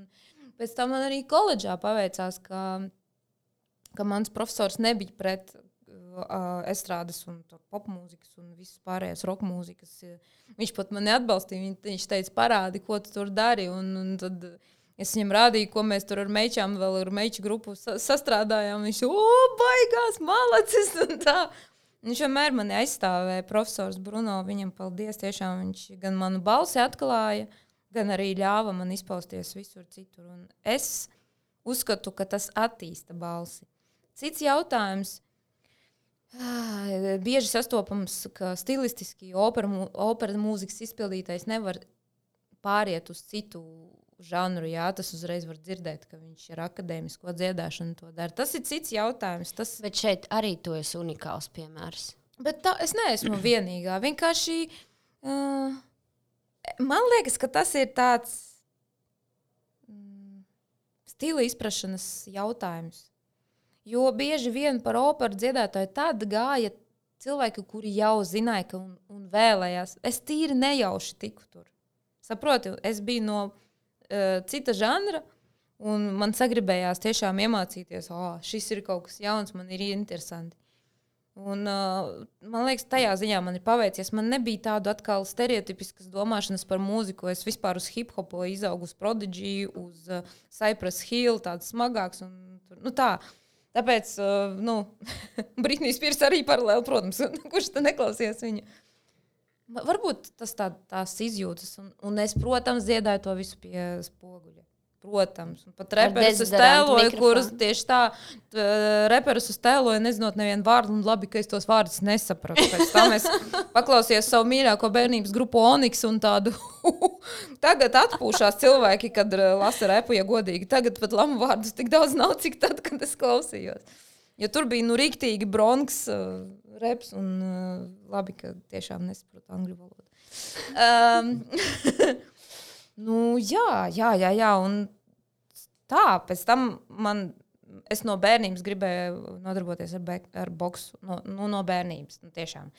pēc tam man arī koledžā paveicās, ka mans profesors nebija pret estrādes un popmūzikas un visas pārējās rockmūzikas. Viņš pat mani atbalstīja, viņš teica, parādi, ko tu tur dari, un tad es viņam rādīju, ko mēs tur ar meičām, vēl ar meiču grupu sastrādājām. Viņš, baigās, malacis, un tā. Viņš vienmēr mani aizstāvēja, profesors Bruno, viņam paldies, tiešām viņš gan manu balsi atklāja, gan arī ļāva man izpausties visur citur. Un es uzskatu, ka tas attīsta balsi. Cits jautājums, bieži sastopams, ka stilistiski opera mūzikas izpildītais nevar pāriet uz citu žanru, jā, tas uzreiz var dzirdēt, ka viņš ir akadēmisko dziedāšanu to dara. Tas ir cits jautājums. Bet šeit arī tu esi unikāls piemērs. Bet es neesmu vienīgā. Vienkārši man liekas, ka tas ir tāds stila izprašanas jautājums. Jo bieži vien par operu dziedātāju tad gāja cilvēki, kuri jau zināja un vēlējās. Es tīri nejauši tiku tur. Saproti, es biju no cita žanra, un man sagribējās tiešām iemācīties, šis ir kaut kas jauns, man ir interesanti. Un man liekas, tajā ziņā man ir paveicies. Man nebija tādu atkal stereotipiskas domāšanas par mūziku. Es vispār uz hip-hopu izaugu, uz Prodigy, uz Cypress Hill, tāds smagāks. Un tā. Tāpēc, Britney Spears arī paralēli, protams, kurš te neklausies viņu. Varbūt tas tās izjūtas, un es, protams, dziedāju to visu pie spoguļa. protams. Un pat reperus es tēloju, kurus tieši tā, reperus es tēloju, nezinot nevienu vārdu, un labi, ka es tos vārdus nesapratu. Pēc tam es paklausījos savu mīļāko bērnības grupu Onyx un tādu, tagad atpūšās cilvēki, kad lasa repu, ja godīgi. Tagad pat lamu vārdus tik daudz nav, cik tad, kad es klausījos. Jo tur bija, riktīgi bronks reps, un labi, ka tiešām nesaprotu angļu valodu. Jā, un tā, pēc tam es no bērnības gribēju nodarboties ar boksu, no bērnības, tiešām.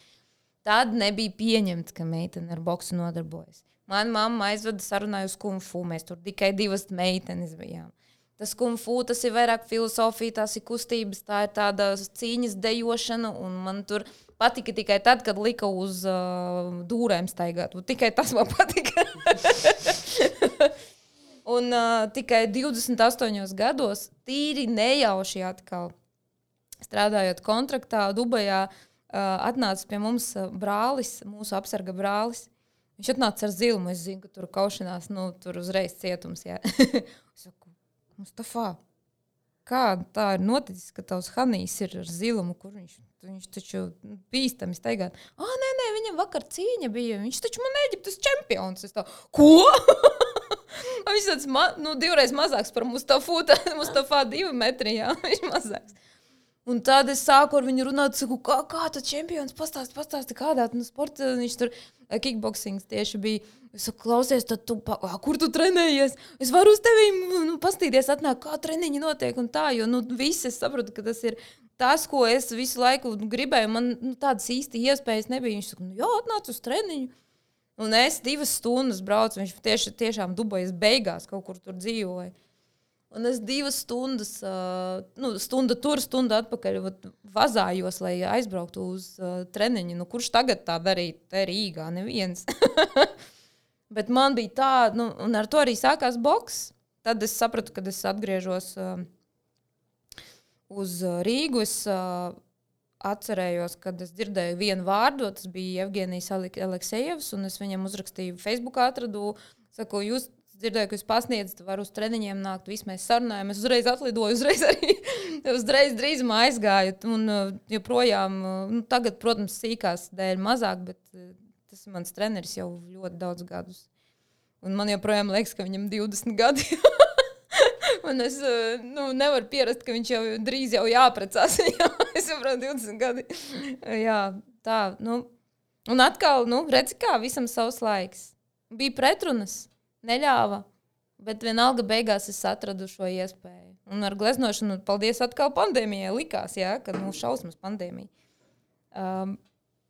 Tad nebija pieņemts, ka meitene ar boksu nodarbojas. Mana mamma aizveda sarunāju uz kung fu, mēs tur tikai 2 meitenes bijām. Tas kung fu, tas ir vairāk filosofija, tās ir kustības, tā ir tāda cīņas dejošana, un man tur patika tikai tad, kad lika uz dūrēm staigāt. Tikai tas man patika. Un tikai 28 gados, tīri nejauši atkal, strādājot kontraktā Dubajā, atnāca pie mums brālis, mūsu apsarga brālis. Viņš atnāca ar zilmu, es zinu, ka tur kaušanās, tur uzreiz cietums, jā. Es saku, Mustafā, kā tā ir noticis, ka tavs Hanijs ir ar zilumu, kur viņš taču bīstami staigāt. Nē, viņam vakar cīņa bija, viņš taču man Eģiptes čempions. Es tā, ko? Viņš tāds, 2 reizes mazāks par Mustafā 2 metri, jā, viņš mazāks. Un tad es sāku ar viņu runāt, saku, kā tad čempions pastāsti kādā, sporta, viņš tur kickboxings tieši bija. Es saku, klausies, tad kur tu trenējies? Es varu uz tevi pastīties, atnāk, kā treniņi notiek un tā, jo visi es saprotu, ka tas ir tas, ko es visu laiku gribēju. Man tādas īsti iespējas nebija. Viņš saka, jā, atnāc uz treniņu. Un es 2 stundas braucu, viņš tiešām Dubajas beigās kaut kur tur dzīvoja. Un es 2 stundas, stunda tur, stunda atpakaļ vazājos, lai aizbrauktu uz treniņu. Kurš tagad tā darīja? Te Rīgā neviens. Bet man bija tā, un ar to arī sākās boks. Tad es sapratu, kad es atgriežos uz Rīgu. Es atcerējos, kad es dzirdēju vienu vārdu, tas bija Evgenijs Aleksejevs, un es viņam uzrakstīju Facebookā, atradu, saku, jūs dzirdēju, ka jūs pasniedzat, var uz treniņiem nākt, visi mēs sarunājam, es uzreiz atlidoju, uzreiz drīzumā aizgāju, un joprojām, tagad, protams, sīkās dēļ mazāk, bet tas ir mans treneris jau ļoti daudz gadus. Un man joprojām liekas, ka viņam 20 gadi. Un es nevaru pierast, ka viņš jau drīz jau jāprecās. Es saprotu 20 gadi. Jā, tā, Un atkal, redzi kā, visam savs laiks. Bija pretrunas. Neļāva, bet vienalga beigās es atradu šo iespēju. Un ar gleznošanu, paldies atkal pandēmijai likās, jā, kad šausmas pandēmija.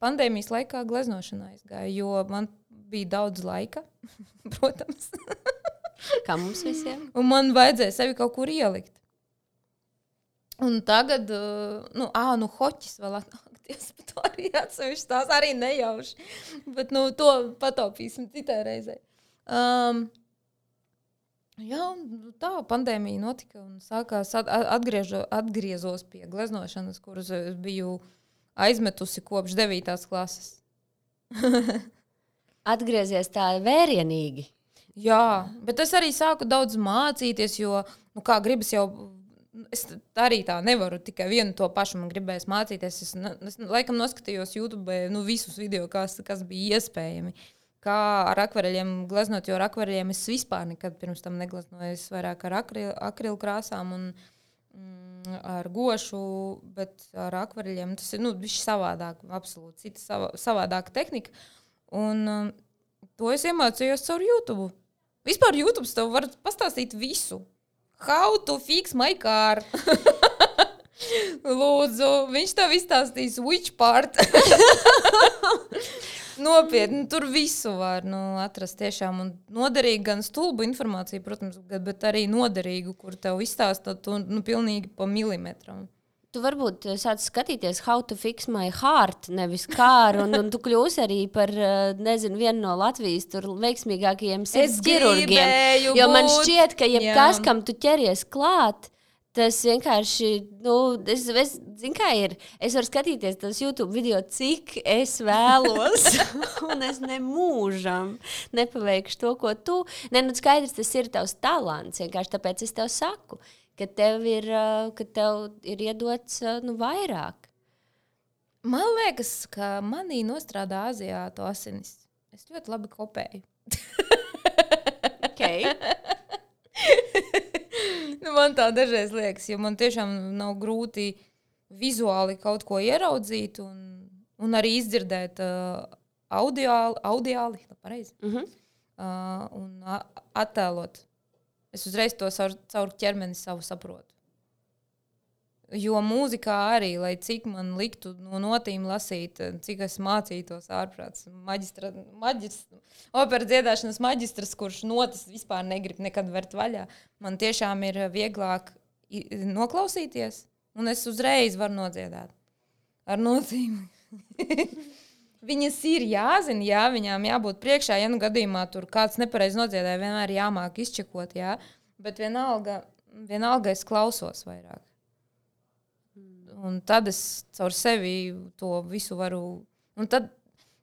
Pandēmijas laikā gleznošanā aizgāja, jo man bija daudz laika, protams. Kā mums visiem. Un man vajadzēja sevi kaut kur ielikt. Un tagad, hoķis vēl atnākties, bet to arī atsevišķi tās arī nejauši. Bet, to pataupīsim citai reizei. Jā, tā pandēmija notika un sākās atgriezos pie gleznošanas, kuras biju aizmetusi kopš 9. klases. Atgriezies tā vērienīgi. Jā, bet es arī sāku daudz mācīties, jo, kā gribas jau, es arī tā nevaru, tikai vienu to pašu man gribēs mācīties. Es laikam noskatījos YouTube visus video, kas bija iespējami. Kā ar akvareļiem gleznot, jo ar akvareļiem es vispār nekad pirms tam negleznoju. Es vairāk ar akrilu krāsām un ar gošu, bet ar akvareļiem tas ir savādāk, absolūti cita savādāka tehnika. Un to es iemācījos caur YouTube. Vispār YouTube tev var pastāstīt visu. How to fix my car. Lūdzu, viņš tev izstāstīs which part. Nopietni, tur visu var atrast tiešām un noderīgi gan stulbu informāciju, protams, bet arī noderīgu, kur tev izstāsta pilnīgi pa milimetram. Tu varbūt sāc skatīties How to fix my heart, nevis car, un tu kļūsi arī par, vienu no Latvijas tur veiksmīgākajiem sirds ķirurgiem. Jo man šķiet, ka jebkas, kam tu ķeries klāt, Tas vienkārši, zinu, kā ir. Es varu skatīties tos YouTube video, cik es vēlos, un es nemūžam nepaveikšu to, ko tu. Skaidrs, tas ir tavs talants, vienkārši tāpēc es tev saku, ka tev ir iedots vairāk. Man liekas, ka manī nostrādā Aziātu asinis. Es ļoti labi kopēju. Okay. Man tā dažreiz liekas, jo man tiešām nav grūti vizuāli kaut ko ieraudzīt un arī izdzirdēt audiāli, pareizi, un attēlot. Es uzreiz to caur ķermeni savu saprotu. Jo mūzikā arī, lai cik man liktu no notīm lasīt, cik es mācītos ārprāts, operas dziedāšanas maģistrs, kurš notas vispār negrib nekad vērt vaļā, man tiešām ir vieglāk noklausīties, un es uzreiz varu nodziedāt. Ar notīm. Viņas ir jāzina, jā, viņām jābūt priekšā, ja nu gadījumā tur kāds nepareiz nodziedāja, vienmēr jāmāk izčekot, jā, bet vienalga es klausos vairāk. Un tad es caur sevi to visu varu...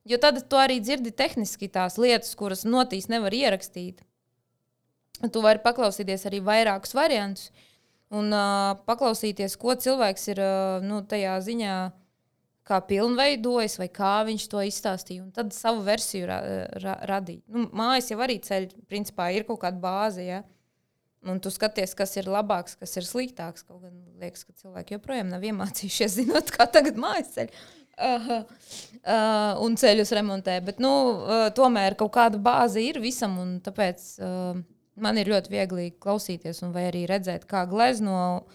Jo tad tu arī dzirdi tehniski tās lietas, kuras notīs nevar ierakstīt. Tu vari paklausīties arī vairākus variantus un paklausīties, ko cilvēks ir tajā ziņā kā pilnveidojis vai kā viņš to izstāstīja. Un tad savu versiju radīt. Mājas jau arī ceļ, principā, ir kaut kāda bāze, ja? Un tu skaties, kas ir labāks, kas ir sliktāks. Kaut gan liekas, ka cilvēki joprojām nav iemācījušies, zinot, kā tagad mājas ceļ. Un ceļus remontē. Bet, tomēr kaut kāda bāze ir visam, un tāpēc man ir ļoti viegli klausīties un vai arī redzēt, kā glezno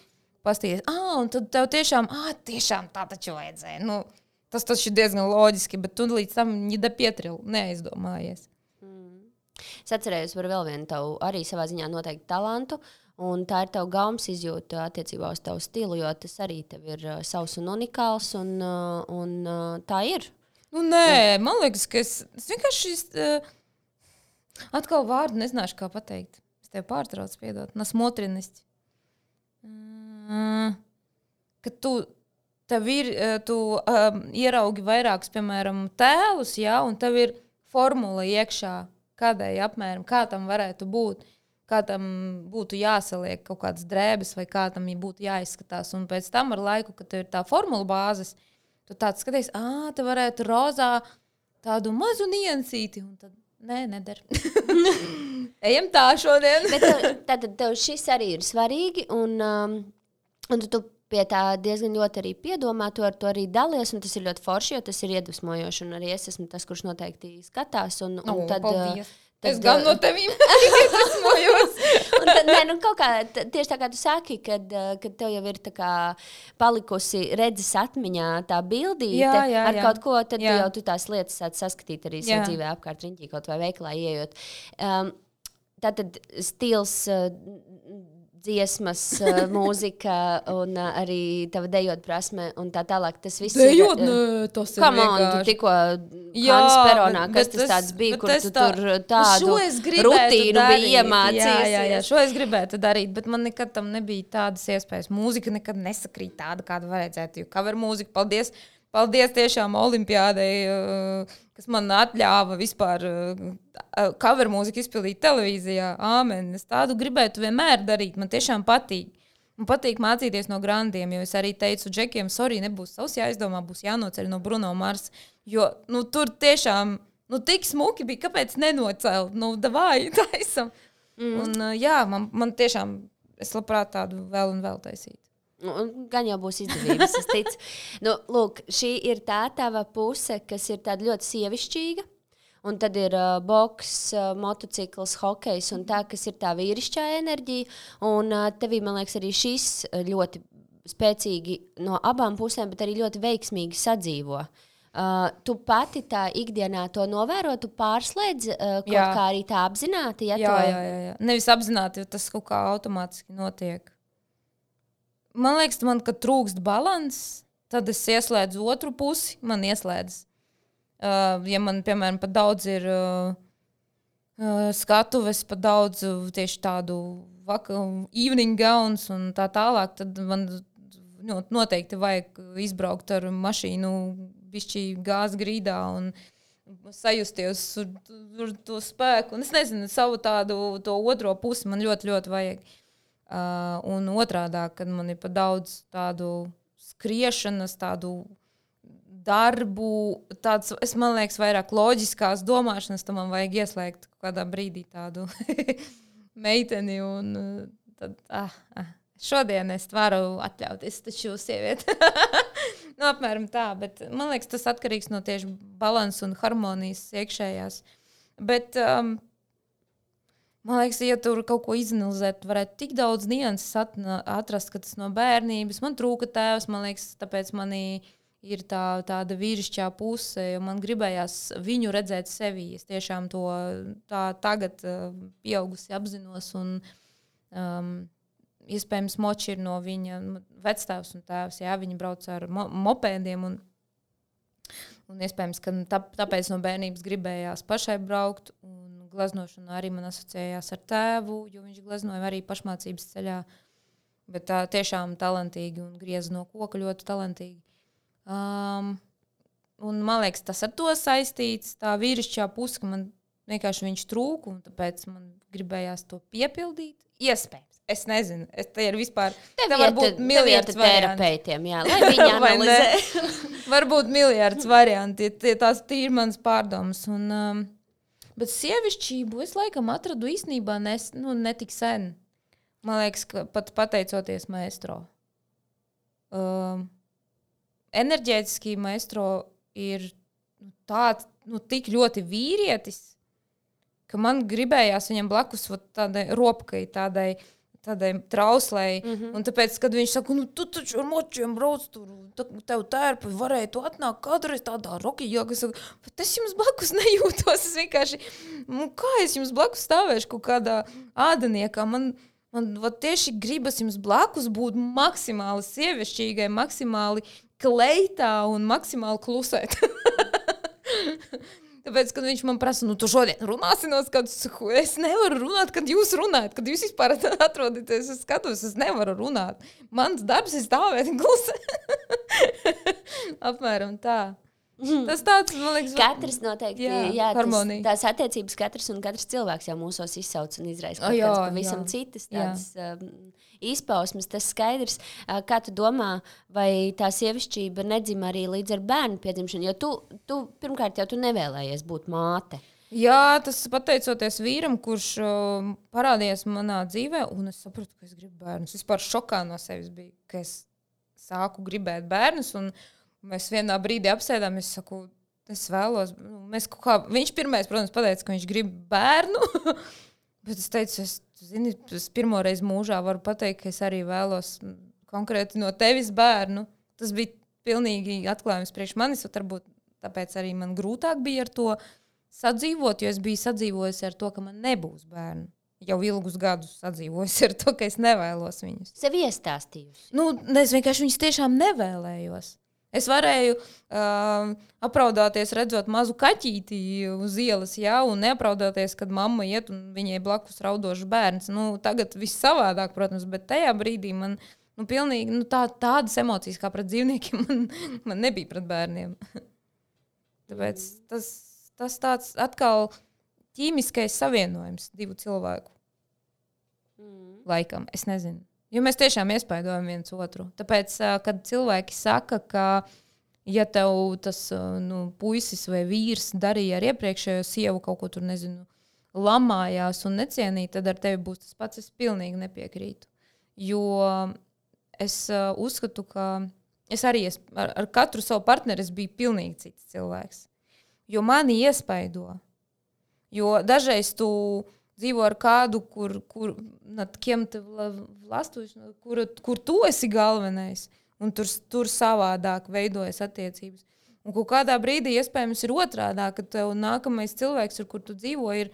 pastīties. Un tad tev tiešām tā taču vajadzēja. Tas taču ir diezgan loģiski, bet tu līdz tam ņida pietril, neaizdomājies. Es atcerējos par vēl vienu tavu arī savā ziņā noteikti talantu, un tā ir tava gaumas izjūta attiecībā uz tavu stilu, jo tas arī tev ir savs un unikāls, un tā ir. Nē, man liekas, ka es vienkārši atkal vārdu nezināšu, kā pateikt. Es tev pārtraucu, piedot, nasmotrinisti. Ka tev ir, tu ieraugi vairākus, piemēram, tēlus, jā, un tev ir formula iekšā, kādai apmēram, kā tam varētu būt, kā tam būtu jāsaliek kaut kādas drēbes vai kā tam būtu jāizskatās. Un pēc tam ar laiku, kad tev ir tā formula bāzes, tu tāds skaties, te varētu rozā tādu mazu niansīti. Un tad, neder. Ejam tā šodien. Bet tad tev šis arī ir svarīgi, un tu pie tā diezgan ļoti arī piedomā, tu ar to arī dalies, un tas ir ļoti forši, jo tas ir iedvesmojoši, un arī es esmu tas, kurš noteikti skatās, un tad... Es gan no tevīm iedvesmojos. Un tad, kaut kā, tieši tā kā tu saki, kad tev jau ir tā kā palikusi redzes atmiņā tā bildīte ar kaut ko, tad jau tu tās lietas sāc saskatīt arī savu dzīvē apkārt riņķī, kaut vai veiklā ieejot. Tātad stils... dziesmas, mūzika un arī tava dejot prasme un tā tālāk. Tas viss dejot, tas ir vienkārši. Tu tikko Hans Peronā, kas tas tāds bija, kur tu tur tādu rutīnu bija iemācījies. Jā, šo es gribētu darīt, bet man nekad tam nebija tādas iespējas. Mūzika nekad nesakrīt tāda, kāda vajadzētu, jo cover mūzika, paldies tiešām olimpiādei, kas man atļāva vispār cover mūziku izpildīt televīzijā. Āmen. Es tādu gribētu vienmēr darīt. Man tiešām patīk. Man patīk mācīties no grandiem, jo es arī teicu Džekiem, sorry, nebūs savs jāizdomā, būs jānoceļ no Bruno Mars. Jo tur tiešām tik smuki bija, kāpēc nenocelt? Davai, taisam. Un man tiešām, es labprāt tādu vēl un vēl taisīt. Gan jau būs izdevības, es ticu. Lūk, šī ir tā tava puse, kas ir tāda ļoti sievišķīga, un tad ir boks, motocikls, hokejs un tā, kas ir tā vīrišķā enerģija, un tevī, man liekas, arī šis ļoti spēcīgi no abām pusēm, bet arī ļoti veiksmīgi sadzīvo. Tu pati tā ikdienā to novēro, tu pārslēdz kaut kā arī tā apzināti? Jā. Nevis apzināti, jo tas kaut kā automātiski notiek. Man liekas, kad trūkst balans, tad es ieslēdzu otru pusi, man ieslēdz. Ja man, piemēram, pat daudz ir skatuves, pat daudz tieši tādu evening gowns un tā tālāk, tad man noteikti vajag izbraukt ar mašīnu bišķī gāzes grīdā un sajusties ar to spēku. Un es nezinu, savu to otro pusi man ļoti, ļoti vajag. Un otrādā, kad man ir pa daudz tādu skriešanas, tādu darbu, man liekas, vairāk loģiskās domāšanas, tad man vajag ieslēgt kādā brīdī tādu meiteni un tad, šodien es varu atļauties, taču sievieti. Apmēram tā, bet man liekas, tas atkarīgs no tieši balansa un harmonijas iekšējās. Bet, man liekas, ja tur kaut ko izanalizēt, varētu tik daudz nianses atrast, ka tas no bērnības. Man trūka tēvs, man liekas, tāpēc manī ir tāda vīrišķā puse, jo man gribējās viņu redzēt sevī. Es tiešām to tagad pieaugusi apzinos un iespējams moči ir no viņa vecstāvs un tēvs. Jā, viņi brauc ar mopēdiem un iespējams, ka tāpēc no bērnības gribējās pašai braukt un gleznošana arī man asociējās ar tēvu, jo viņš gleznoja arī pašmācības ceļā, bet tā tiešām talantīgi un grieza no koka ļoti talantīgi. Un man liekas, tas ar to saistīts, tā vīrišķā puse, ka man vienkārši viņš trūka un tāpēc man gribējās to piepildīt. Iespējams. Es nezinu, te ir vispār. Te var būt miljards terapeitiem, jā, lai viņi analizē. Varbūt miljards varianti, tās ir mans pārdomas. Bet sievišķību es laikam atradu īstenībā netik sen. Man liekas, ka pat pateicoties maestro. Enerģētiski maestro ir tāds, tik ļoti vīrietis, ka man gribējās viņam blakus tādai ropkai, tādai trauslei. Un tāpēc, kad viņš saka, tu taču ar močiem brauc tur, tev tērpi varēja tu atnākt kādreiz tādā rokijā, ka saka, bet es jums blakus nejūtos. Es vienkārši, kā es jums blakus stāvēšu kaut kādā ādaniekā? Man tieši gribas jums blakus būt maksimāli sievišķīgai, maksimāli kleitā un maksimāli klusēt. Tāpēc, kad viņš man prasa, tu šodien runāsi no skatu, es nevaru runāt, kad jūs runājat, kad jūs vispār atrodaties uz skatus, es nevaru runāt. Mans darbs ir stāvēt klusi. Apmēram tā. Tas tāds, man liekas, katrs noteikti, tās attiecības katrs un katrs cilvēks jau mūsos izsauc un izraisa kaut kāds pavisam citas tādas izpausmes, tas skaidrs. Kā tu domā, vai tā sievišķība nedzima arī līdz ar bērnu piedzimšanu? Jo tu pirmkārt jau tu nevēlējies būt māte. Jā, tas pateicoties vīram, kurš parādījās manā dzīvē, un es sapratu, ka es gribu bērnus. Vispār šokā no sevis bija, ka es sāku gribēt bērnus, un mēs vienā brīdī apsēdām, es saku, es vēlos, viņš pirmais, protams, pateica, ka viņš grib bērnu, bet es teicu, es pirmo reizi mūžā varu pateikt, ka es arī vēlos konkrēti no tevis bērnu. Tas bija pilnīgi atklājums priekš manis, un varbūt tāpēc arī man grūtāk bija ar to sadzīvot, jo es biju sadzīvojusi ar to, ka man nebūs bērnu. Jau ilgus gadus sadzīvojusi ar to, ka es nevēlos viņus. Sev iestāstījusi? Es vienkārši viņus tiešām nevēlējos. Es varēju apraudāties, redzot mazu kaķīti uz ielas, un neapraudāties, kad mamma iet un viņai blakus raudošs bērns. Tagad viss savādāk, protams, bet tajā brīdī man pilnīgi tādas emocijas kā pret dzīvniekiem man nebija pret bērniem. Tāpēc tas tāds atkal ķīmiskais savienojums divu cilvēku. Laikam, es nezinu. Jo mēs tiešām iespaidojam viens otru. Tāpēc, kad cilvēki saka, ka ja tev tas puisis vai vīrs darīja ar iepriekšējo sievu kaut ko tur, nezinu, lamājās un necienīja, tad ar tevi būs tas pats, es pilnīgi nepiekrītu. Jo es uzskatu, ka es arī ar katru savu partneri es biju pilnīgi cits cilvēks. Jo mani iespaido. Jo dažreiz tu dzīvo ar kādu, kur tu esi galvenais, un tur savādāk veidojas attiecības. Un kaut kādā brīdī iespējams ir otrādāk, ka tev nākamais cilvēks, ar kur tu dzīvo, ir,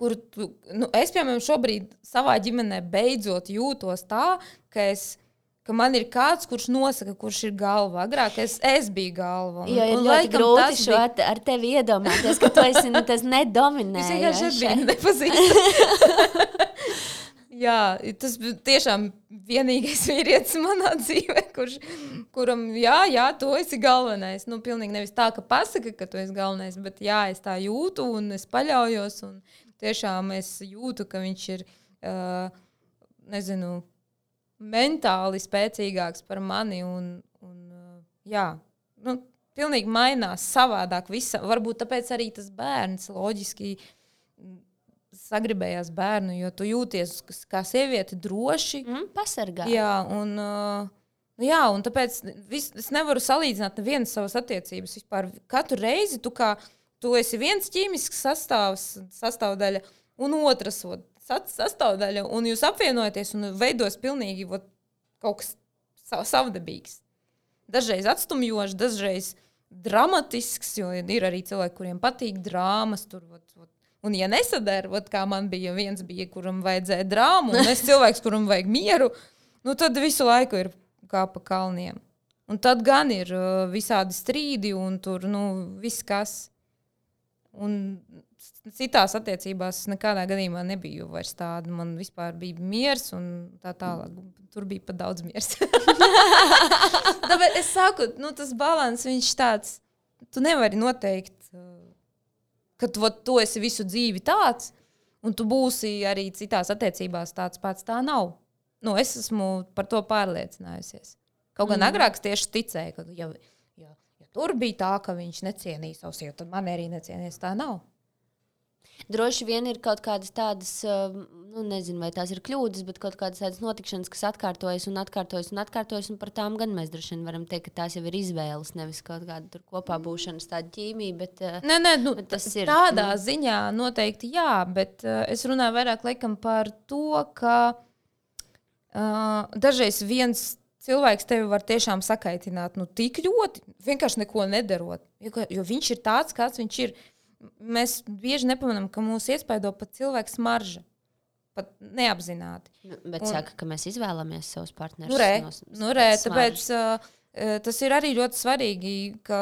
es, piemēram, šobrīd savā ģimenē beidzot jūtos tā, ka man ir kāds, kurš nosaka, kurš ir galva. Agrāk es biju galva. Jo ir ļoti grūti šo ar tevi iedomāties, ka tu esi tas nedominējošais. Es vienkārši nepazīstu. Jā, tas tiešām vienīgais vīrietis manā dzīvē, kuram, jā, tu esi galvenais. Nu, pilnīgi nevis tā, ka pasaka, ka tu esi galvenais, bet jā, es tā jūtu un es paļaujos. Un tiešām es jūtu, ka viņš ir, nezinu, mentāli spēcīgāks par mani. Jā, nu, pilnīgi mainās savādāk. Varbūt tāpēc arī tas bērns loģiski sagribējās bērnu, jo tu jūties kā sieviete droši. Pasargā. Jā, un tāpēc es nevaru salīdzināt nevienas savas attiecības. Vispār katru reizi tu esi viens ķīmisks sastāvdaļa un otras sastāvdaļa, un jūs apvienojaties un veidos pilnīgi kaut kas savdabīgs. Dažreiz atstumjošs, dažreiz dramatisks, jo ir arī cilvēki, kuriem patīk drāmas, un ja nesadara, kā man bija, viens bija, kuram vajadzēja drāmu, un es cilvēks, kuram vajag mieru, nu tad visu laiku ir kā pa kalniem. Un tad gan ir visādi strīdi, un tur, viss kas. Un citās attiecībās nekādā gadījumā nebija vairs tāda. Man vispār bija miers, un tā tālāk. Tur bija pat daudz miers. Tāpēc es saku, tas balans, viņš tāds, tu nevari noteikt, ka tu esi visu dzīvi tāds, un tu būsi arī citās attiecībās tāds pats. Tā nav. Es esmu par to pārliecinājusies. Kaut gan agrāk tieši ticēju, ka ja tur bija tā, ka viņš necienīja savu sievu, tad man arī necienīs. Tā nav. Droši vien ir kaut kādas tādas, nezinu, vai tās ir kļūdas, bet kaut kādas tādas notikšanas, kas atkārtojas, un par tām gan mēs droši vien varam teikt, ka tās jau ir izvēles, nevis kaut kāda tur kopā būšanas tāda ķīmija, bet, bet tas ir. Tādā ziņā noteikti jā, bet es runāju vairāk laikam par to, ka dažreiz viens cilvēks tevi var tiešām sakaitināt, tik ļoti, vienkārši neko nedarot, jo viņš ir tāds, kāds viņš ir. Mēs bieži nepamanām, ka mūs iespaido pat cilvēka smarža. Pat neapzināti. Bet saka, ka mēs izvēlamies savus partnerus. Tāpēc tas ir arī ļoti svarīgi, ka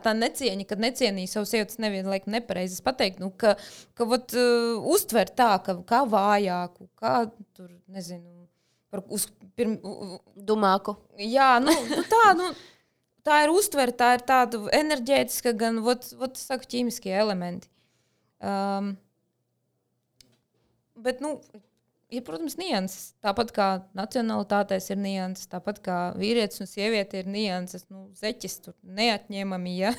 tā necieņa, kad necienīja savu sievu, tas nevienlaik nepareizi pateikt, ka uztver tā, kā vājāku, kā tur, nezinu, dumāku. Jā, tā ir uztvere, tā ir tāda enerģētiska, gan saku, ķīmiskie elementi. Bet, ir, protams, nianses. Tāpat kā nacionalitātēs ir nianses, tāpat kā vīrietis un sieviete ir nianses. Zeķis tur neatņemami, ja.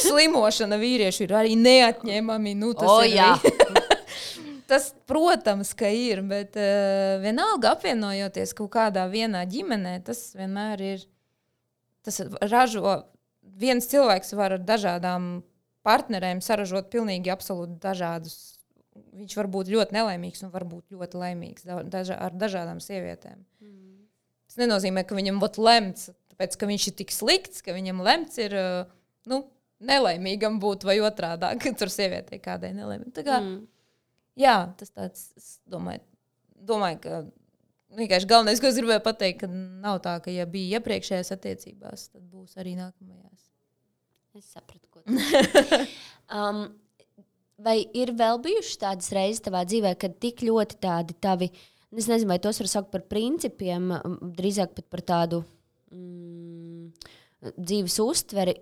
Slimošana vīriešu ir arī neatņemami. Tas, protams, ka ir, bet vienalga apvienojoties kaut kādā vienā ģimenē, tas vienmēr ir. Tas ražo, viens cilvēks var ar dažādām partnerēm saražot pilnīgi absolūti dažādus. Viņš var būt ļoti nelaimīgs un var būt ļoti laimīgs ar dažādām sievietēm. Tas nenozīmē, ka viņam lemts, tāpēc, ka viņš ir tik slikts, ka viņam lemts ir nelaimīgam būt vai otrādāk, ka tur sievietei kādai nelaimīgi. Tā kā, jā, tas tāds, es domāju, ka vienkārši galvenais, ko es gribēju pateikt, ka nav tā, ka ja bija iepriekšējās attiecībās, tad būs arī nākamajās. Es sapratu, ko tu. Vai ir vēl bijušas tādas reizes tavā dzīvē, kad tik ļoti tādi tavi, es nezinu, vai tos var saukt par principiem, drīzāk pat par tādu dzīves uztveri,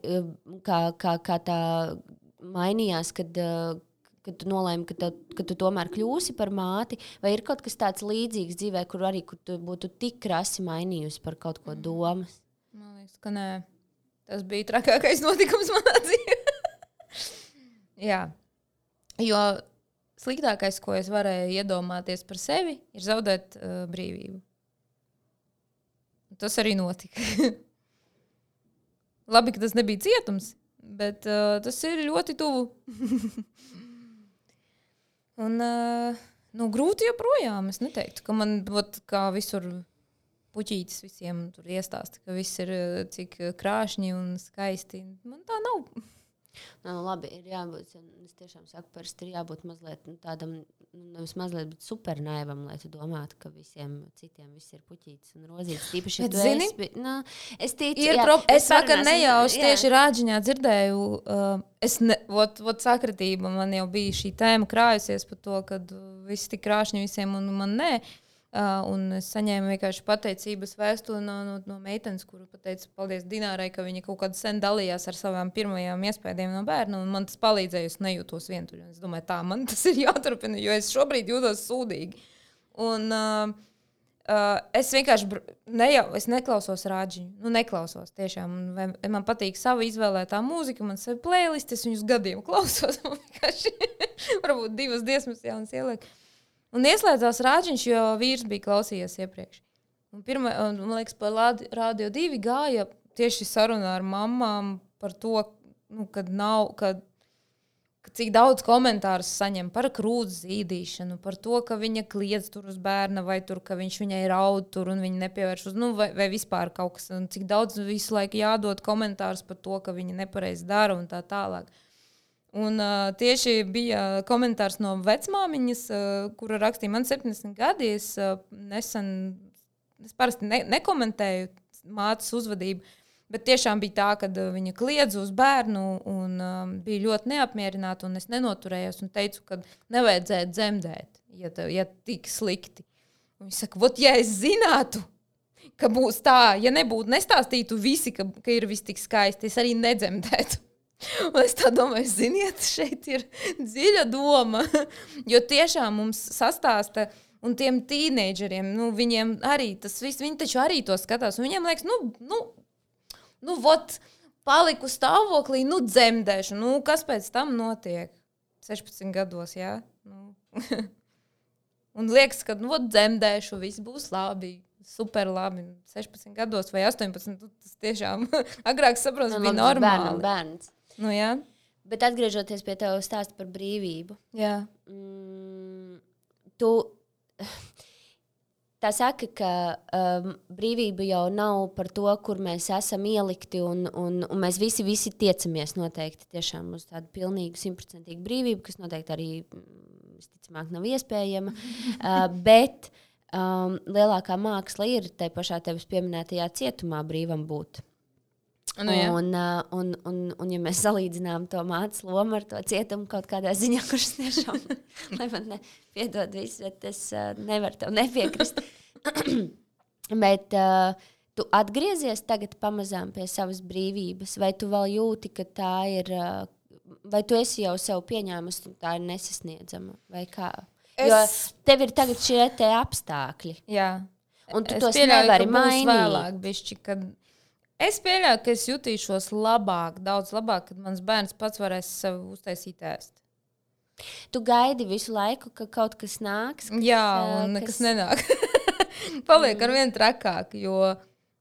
kā tā mainījās, kad tu nolēmi, ka tu tomēr kļūsi par māti, vai ir kaut kas tāds līdzīgs dzīvē, kur tu būtu tik krasi mainījusi par kaut ko domas? Man liekas, ka nē. Tas bija trakākais notikums manā dzīvē. Jā. Jo sliktākais, ko es varēju iedomāties par sevi, ir zaudēt brīvību. Tas arī notika. Labi, ka tas nebija cietums, bet tas ir ļoti tuvu. Un grūti joprojām. Es neteiktu, ka man kā visur puķītis visiem tur iestāsta, ka viss ir cik krāšņi un skaisti. Man tā nav. Labi, ir jābūt, es tiešām saku, parasti ir jābūt mazliet tādam, nevis mazliet, bet super naivam, lai tu domātu, ka visiem citiem viss ir puķītis un rozītis. Tīpaši, bet zini, es ticu, es vakar nejauši tieši rāģiņā dzirdēju, sakritība, man jau bija šī tēma krājusies par to, ka viss tik krāšņi visiem un man nē. Un es saņēmu vienkārši pateicības vēstuli no meitenes, kuru pateicu paldies Dinārai, ka viņa kaut kādā sen dalījās ar savām pirmajām iespējām no bērna, un man tas palīdzēja, es nejūtos vientuļi. Es domāju, tā, man tas ir jāturpina, jo es šobrīd jūtos sūdīgi. Un es vienkārši es neklausos rāģiņu, neklausos tiešām. Man patīk sava izvēlētā mūzika, man sev playlist, es viņus gadiem klausos, man vienkārši varbūt 2 dziesmas jaunas ieliek. Un ieslēdzās rāģiņš, jo vīrs bija klausījies iepriekš. Un man liekas, pa Radio 2 gāja tieši sarunā ar mamām par to, kad cik daudz komentārus saņem par krūts zīdīšanu, par to, ka viņa kliedz tur uz bērna, vai tur, ka viņš viņai raud tur un viņa nepievērš uz, vai vispār kaut kas, un cik daudz visu laiku jādod komentārus par to, ka viņa nepareizi dara un tā tālāk. Un tieši bija komentārs no vecmāmiņas, kura rakstīja, man 70 gadi, es parasti nekomentēju mātes uzvedību, bet tiešām bija tā, ka viņa kliedza uz bērnu un bija ļoti neapmierināta, un es nenoturējos un teicu, ka nevajadzētu dzemdēt, ja tik slikti. Un viņa saka, ja es zinātu, ka būs tā, ja nestāstītu visi, ka ir viss tik skaisti, es arī nedzemdētu. Un es tā domāju, ziniet, šeit ir dziļa doma, jo tiešām mums sastāsta, un tiem tīneidžeriem, viņiem arī tas viss, viņi taču arī to skatās, un viņiem liekas, paliku stāvoklī, dzemdēšu, kas pēc tam notiek? 16 gados, jā? Un liekas, ka, dzemdēšu, viss būs labi. Super labi, 16 gados vai 18, tas tiešām agrāk saprotu, bija normāli. Bērns. Jā. Bet atgriežoties pie tev stāsta par brīvību. Jā. Tu tā saka, ka brīvība jau nav par to, kur mēs esam ielikti, un mēs visi tiecamies noteikti tiešām uz tādu pilnīgu 100% brīvību, kas noteikti arī, visticamāk, nav iespējama, bet lielākā māksla ir tai pašā tevis pieminētajā cietumā brīvam būt. Jā. Un ja mēs salīdzinām to mātes lomu ar to cietumu kaut kādā ziņā, kurš tiešām, lai man piedod visu, bet es nevaru tev nepiekrist. Bet tu atgriezies tagad pamazām pie savas brīvības, vai tu vēl jūti, ka tā ir, vai tu esi jau sev pieņēmusi, un tā ir nesasniedzama, vai kā? Jo tev ir tagad šie te apstākļi. Jā. Un tu tos nevari mainīt. Vēlāk, bišķi, kad es pieļauju, ka es jutīšos labāk, daudz labāk, kad mans bērns pats varēs sev uztaisīt ēst. Tu gaidi visu laiku, ka kaut kas nāks? Jā, un nekas nenāk. Paliek arvien trakāk, jo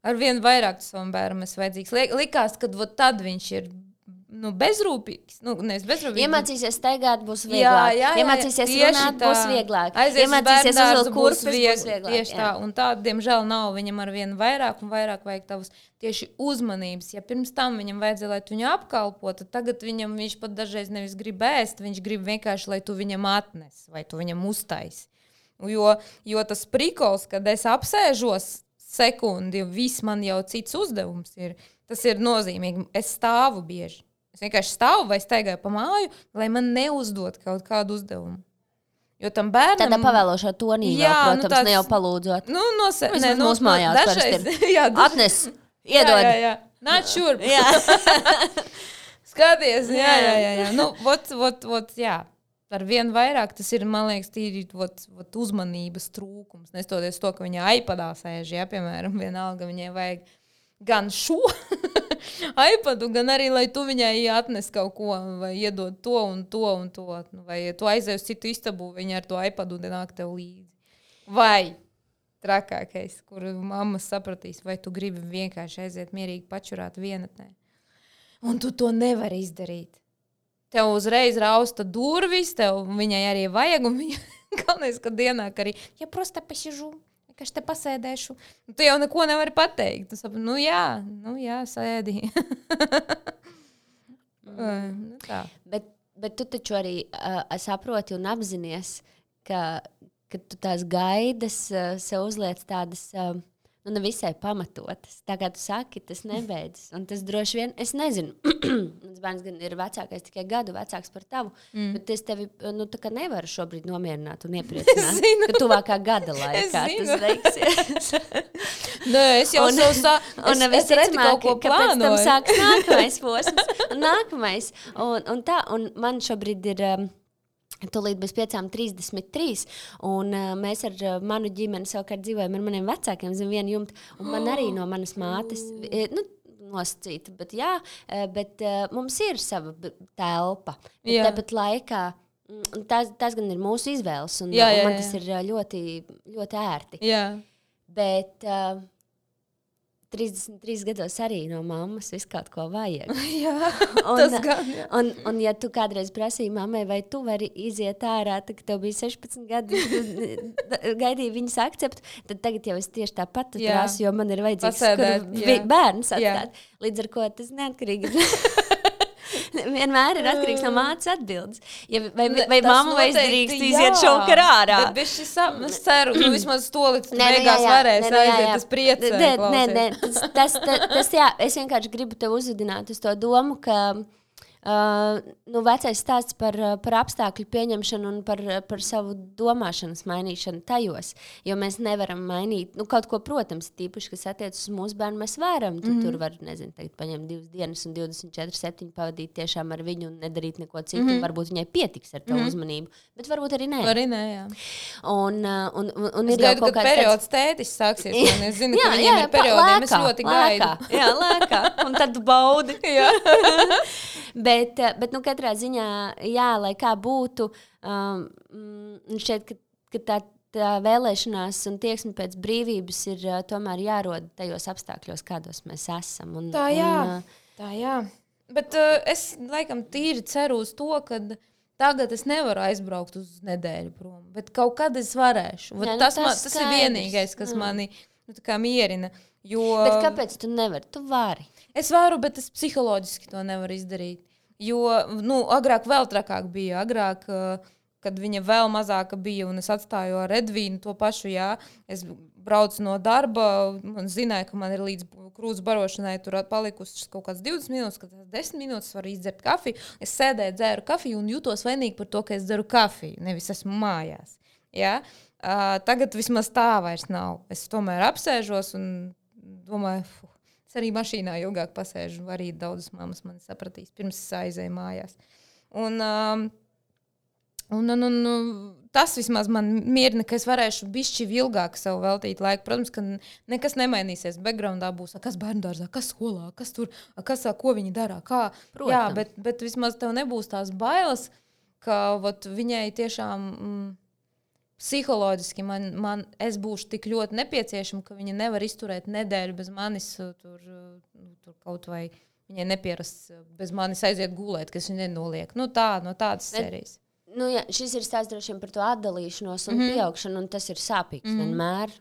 arvien vairāk savam bērnam es vajadzīgs. Likās, ka tad viņš ir bezrūpīgs. Iemācīsies staigāt, būs vieglāk. Iemācīsies runāt, būs vieglāk. Iemācīsies uzvilkt kurpes, būs vieglāk. Tieši tā, un tā, diemžēl, nav. Viņam arvien vairāk un vairāk vajag tavas tieši uzmanības. Ja pirms tam viņam vajadzēja, lai tu viņu apkalpo, tad tagad viņš pat dažreiz nevis grib ēst, viņš grib vienkārši, lai tu viņam atnes, vai tu viņam uztaisi. Jo tas prikols, kad es apsēžos sekundi, viss man jau cits uzdevums ir, tas ir nozīmīgi. Es stāvu bieži. Es vienkārši stāvu vai staigāju pa māju, lai man neuzdod kaut kādu uzdevumu. Jo tam bērnam... Tādā pavēlošā tonī, protams, ne jau palūdzot. Mūsu mājās dažreiz. Atnes, iedod. Jā. Nāc šurp. Skaties, jā. Jā. Ar vien vairāk tas ir, man liekas, tīri uzmanības trūkums. Nestoties to, ka viņa iPadā sēž, piemēram, vienalga viņai vajag gan šo iPadu, gan arī, lai tu viņai atnes kaut ko, vai iedod to un to un to. Vai tu aizēji uz citu istabu, viņa ar to iPadu nāk tev līdzi. Vai trakākais, kur mammas sapratīs, vai tu gribi vienkārši aiziet mierīgi pačurāt vienatnē. Un tu to nevari izdarīt. Tev uzreiz rausta durvis, tev viņai arī vajag, un viņa galvenais, ka dienā, ka arī, ja prosta pasižu, ka es te pasēdēšu. Tu jau neko nevari pateikt. Tu saproti, jā, sēdi. Tā. Bet tu taču arī saproti un apzinies, ka tu tās gaidas sev uzliec tādas... nevisai pamatotas. Tā kā tu saki, tas nebeidzas. Un tas droši vien, es nezinu, mans bērns gan ir vecākais, tikai gadu vecāks par tavu, bet es tevi tā kā nevaru šobrīd nomierināt un iepriecināt, ka tuvākā gada laikā tas veiksies. Nē, es jau es redzu kaut ko plānoju. Pēc tam sāks nākamais posms. Nākamais. Un man šobrīd ir... Tūlīt bez 5:33, un mēs ar manu ģimeni savukārt dzīvojam ar maniem vecākiem zem viena jumta, un man arī no manas mātes, nosacīta, bet mums ir sava telpa. Tāpat laikā, tās gan ir mūsu izvēles, un man tas ir ļoti, ļoti ērti. Jā. Bet... 33 gados arī no mammas visu kaut ko vajag. Jā, tas gan. Un ja tu kādreiz prasīji mammai, vai tu vari iziet ārā, tad tev bija 16 gadi, gaidīja viņas akceptu, tad tagad jau es tieši tāpat prasu, jo man ir vajadzīgs bērns atstāt. Līdz ar ko tas neatkarīgi vienmēr ir atkarīgs no mātes atbildes. Vai mamma vai es drīkst iziet šovakar ārā? Es ceru, vismaz to līdz beigās varēs aiziet, tas priecē. Nē, tas jā, es vienkārši gribu tev uzvedināt uz to domu, ka vecais stāsts par apstākļu pieņemšanu un par savu domāšanas mainīšanu tajos, jo mēs nevaram mainīt, kaut ko, protams, tīpaši, kas attiecas uz mūsu bērnu, mēs varam, tur var, nezinu, tagad paņemt 2 dienas un 24/7 pavadīt tiešām ar viņu un nedarīt neko citu, varbūt viņai pietiks ar tavu uzmanību, bet varbūt arī nē. Arī nē, jā. Un es gaidu, kad periods tētis sāksies, un es zinu, ka viņiem ir periodiem, es ļoti gaidu. Jā, lēkā, un tad tu baudi. Jā. Bet katrā ziņā, jā, lai kā būtu, šķiet, ka tā vēlēšanās un tieksme pēc brīvības ir tomēr jārod tajos apstākļos, kādos mēs esam. Tā jā. Bet es laikam tīri ceru uz to, ka tagad es nevaru aizbraukt uz nedēļu prom, bet kaut kad es varēšu. Tas ir vienīgais, kas mani mierina. Bet kāpēc tu nevari? Tu vari. Es varu, bet es psiholoģiski to nevaru izdarīt. Jo, agrāk vēl trakāk bija. Agrāk, kad viņa vēl mazāka bija un es atstāju ar Edvīnu to pašu, es braucu no darba un zināju, ka man ir līdz krūts barošanai tur palikusi kaut kāds 20 minūtes, kad 10 minūtes varu izdzert kafiju. Es sēdēju, dzēru kafiju un jūtos vainīgi par to, ka es dzeru kafiju, nevis esmu mājās. Ja? Tagad vismaz tā vairs nav. Es tomēr apsēžos un domāju, es arī mašīnā ilgāk pasēžu, arī daudzas mammas mani sapratīs, pirms es aizēju mājās. Un tas vismaz man mierina, ka es varēšu bišķi ilgāk sev veltīt laiku. Protams, ka nekas nemainīsies. Backgroundā būs, kas bērndārzā, kas skolā, kas tur, ko viņi dara, kā. Protams. Jā, bet vismaz tev nebūs tās bailes, ka viņai tiešām... Psiholoģiski es būšu tik ļoti nepieciešama, ka viņa nevar izturēt nedēļu bez manis, tur kaut vai viņai nepierast bez manis aiziet gulēt, kas viņa nenoliek. No tādas sērijas. Jā, šis ir stāsts droši vien par to atdalīšanos un pieaugšanu, un tas ir sāpīgs vienmēr.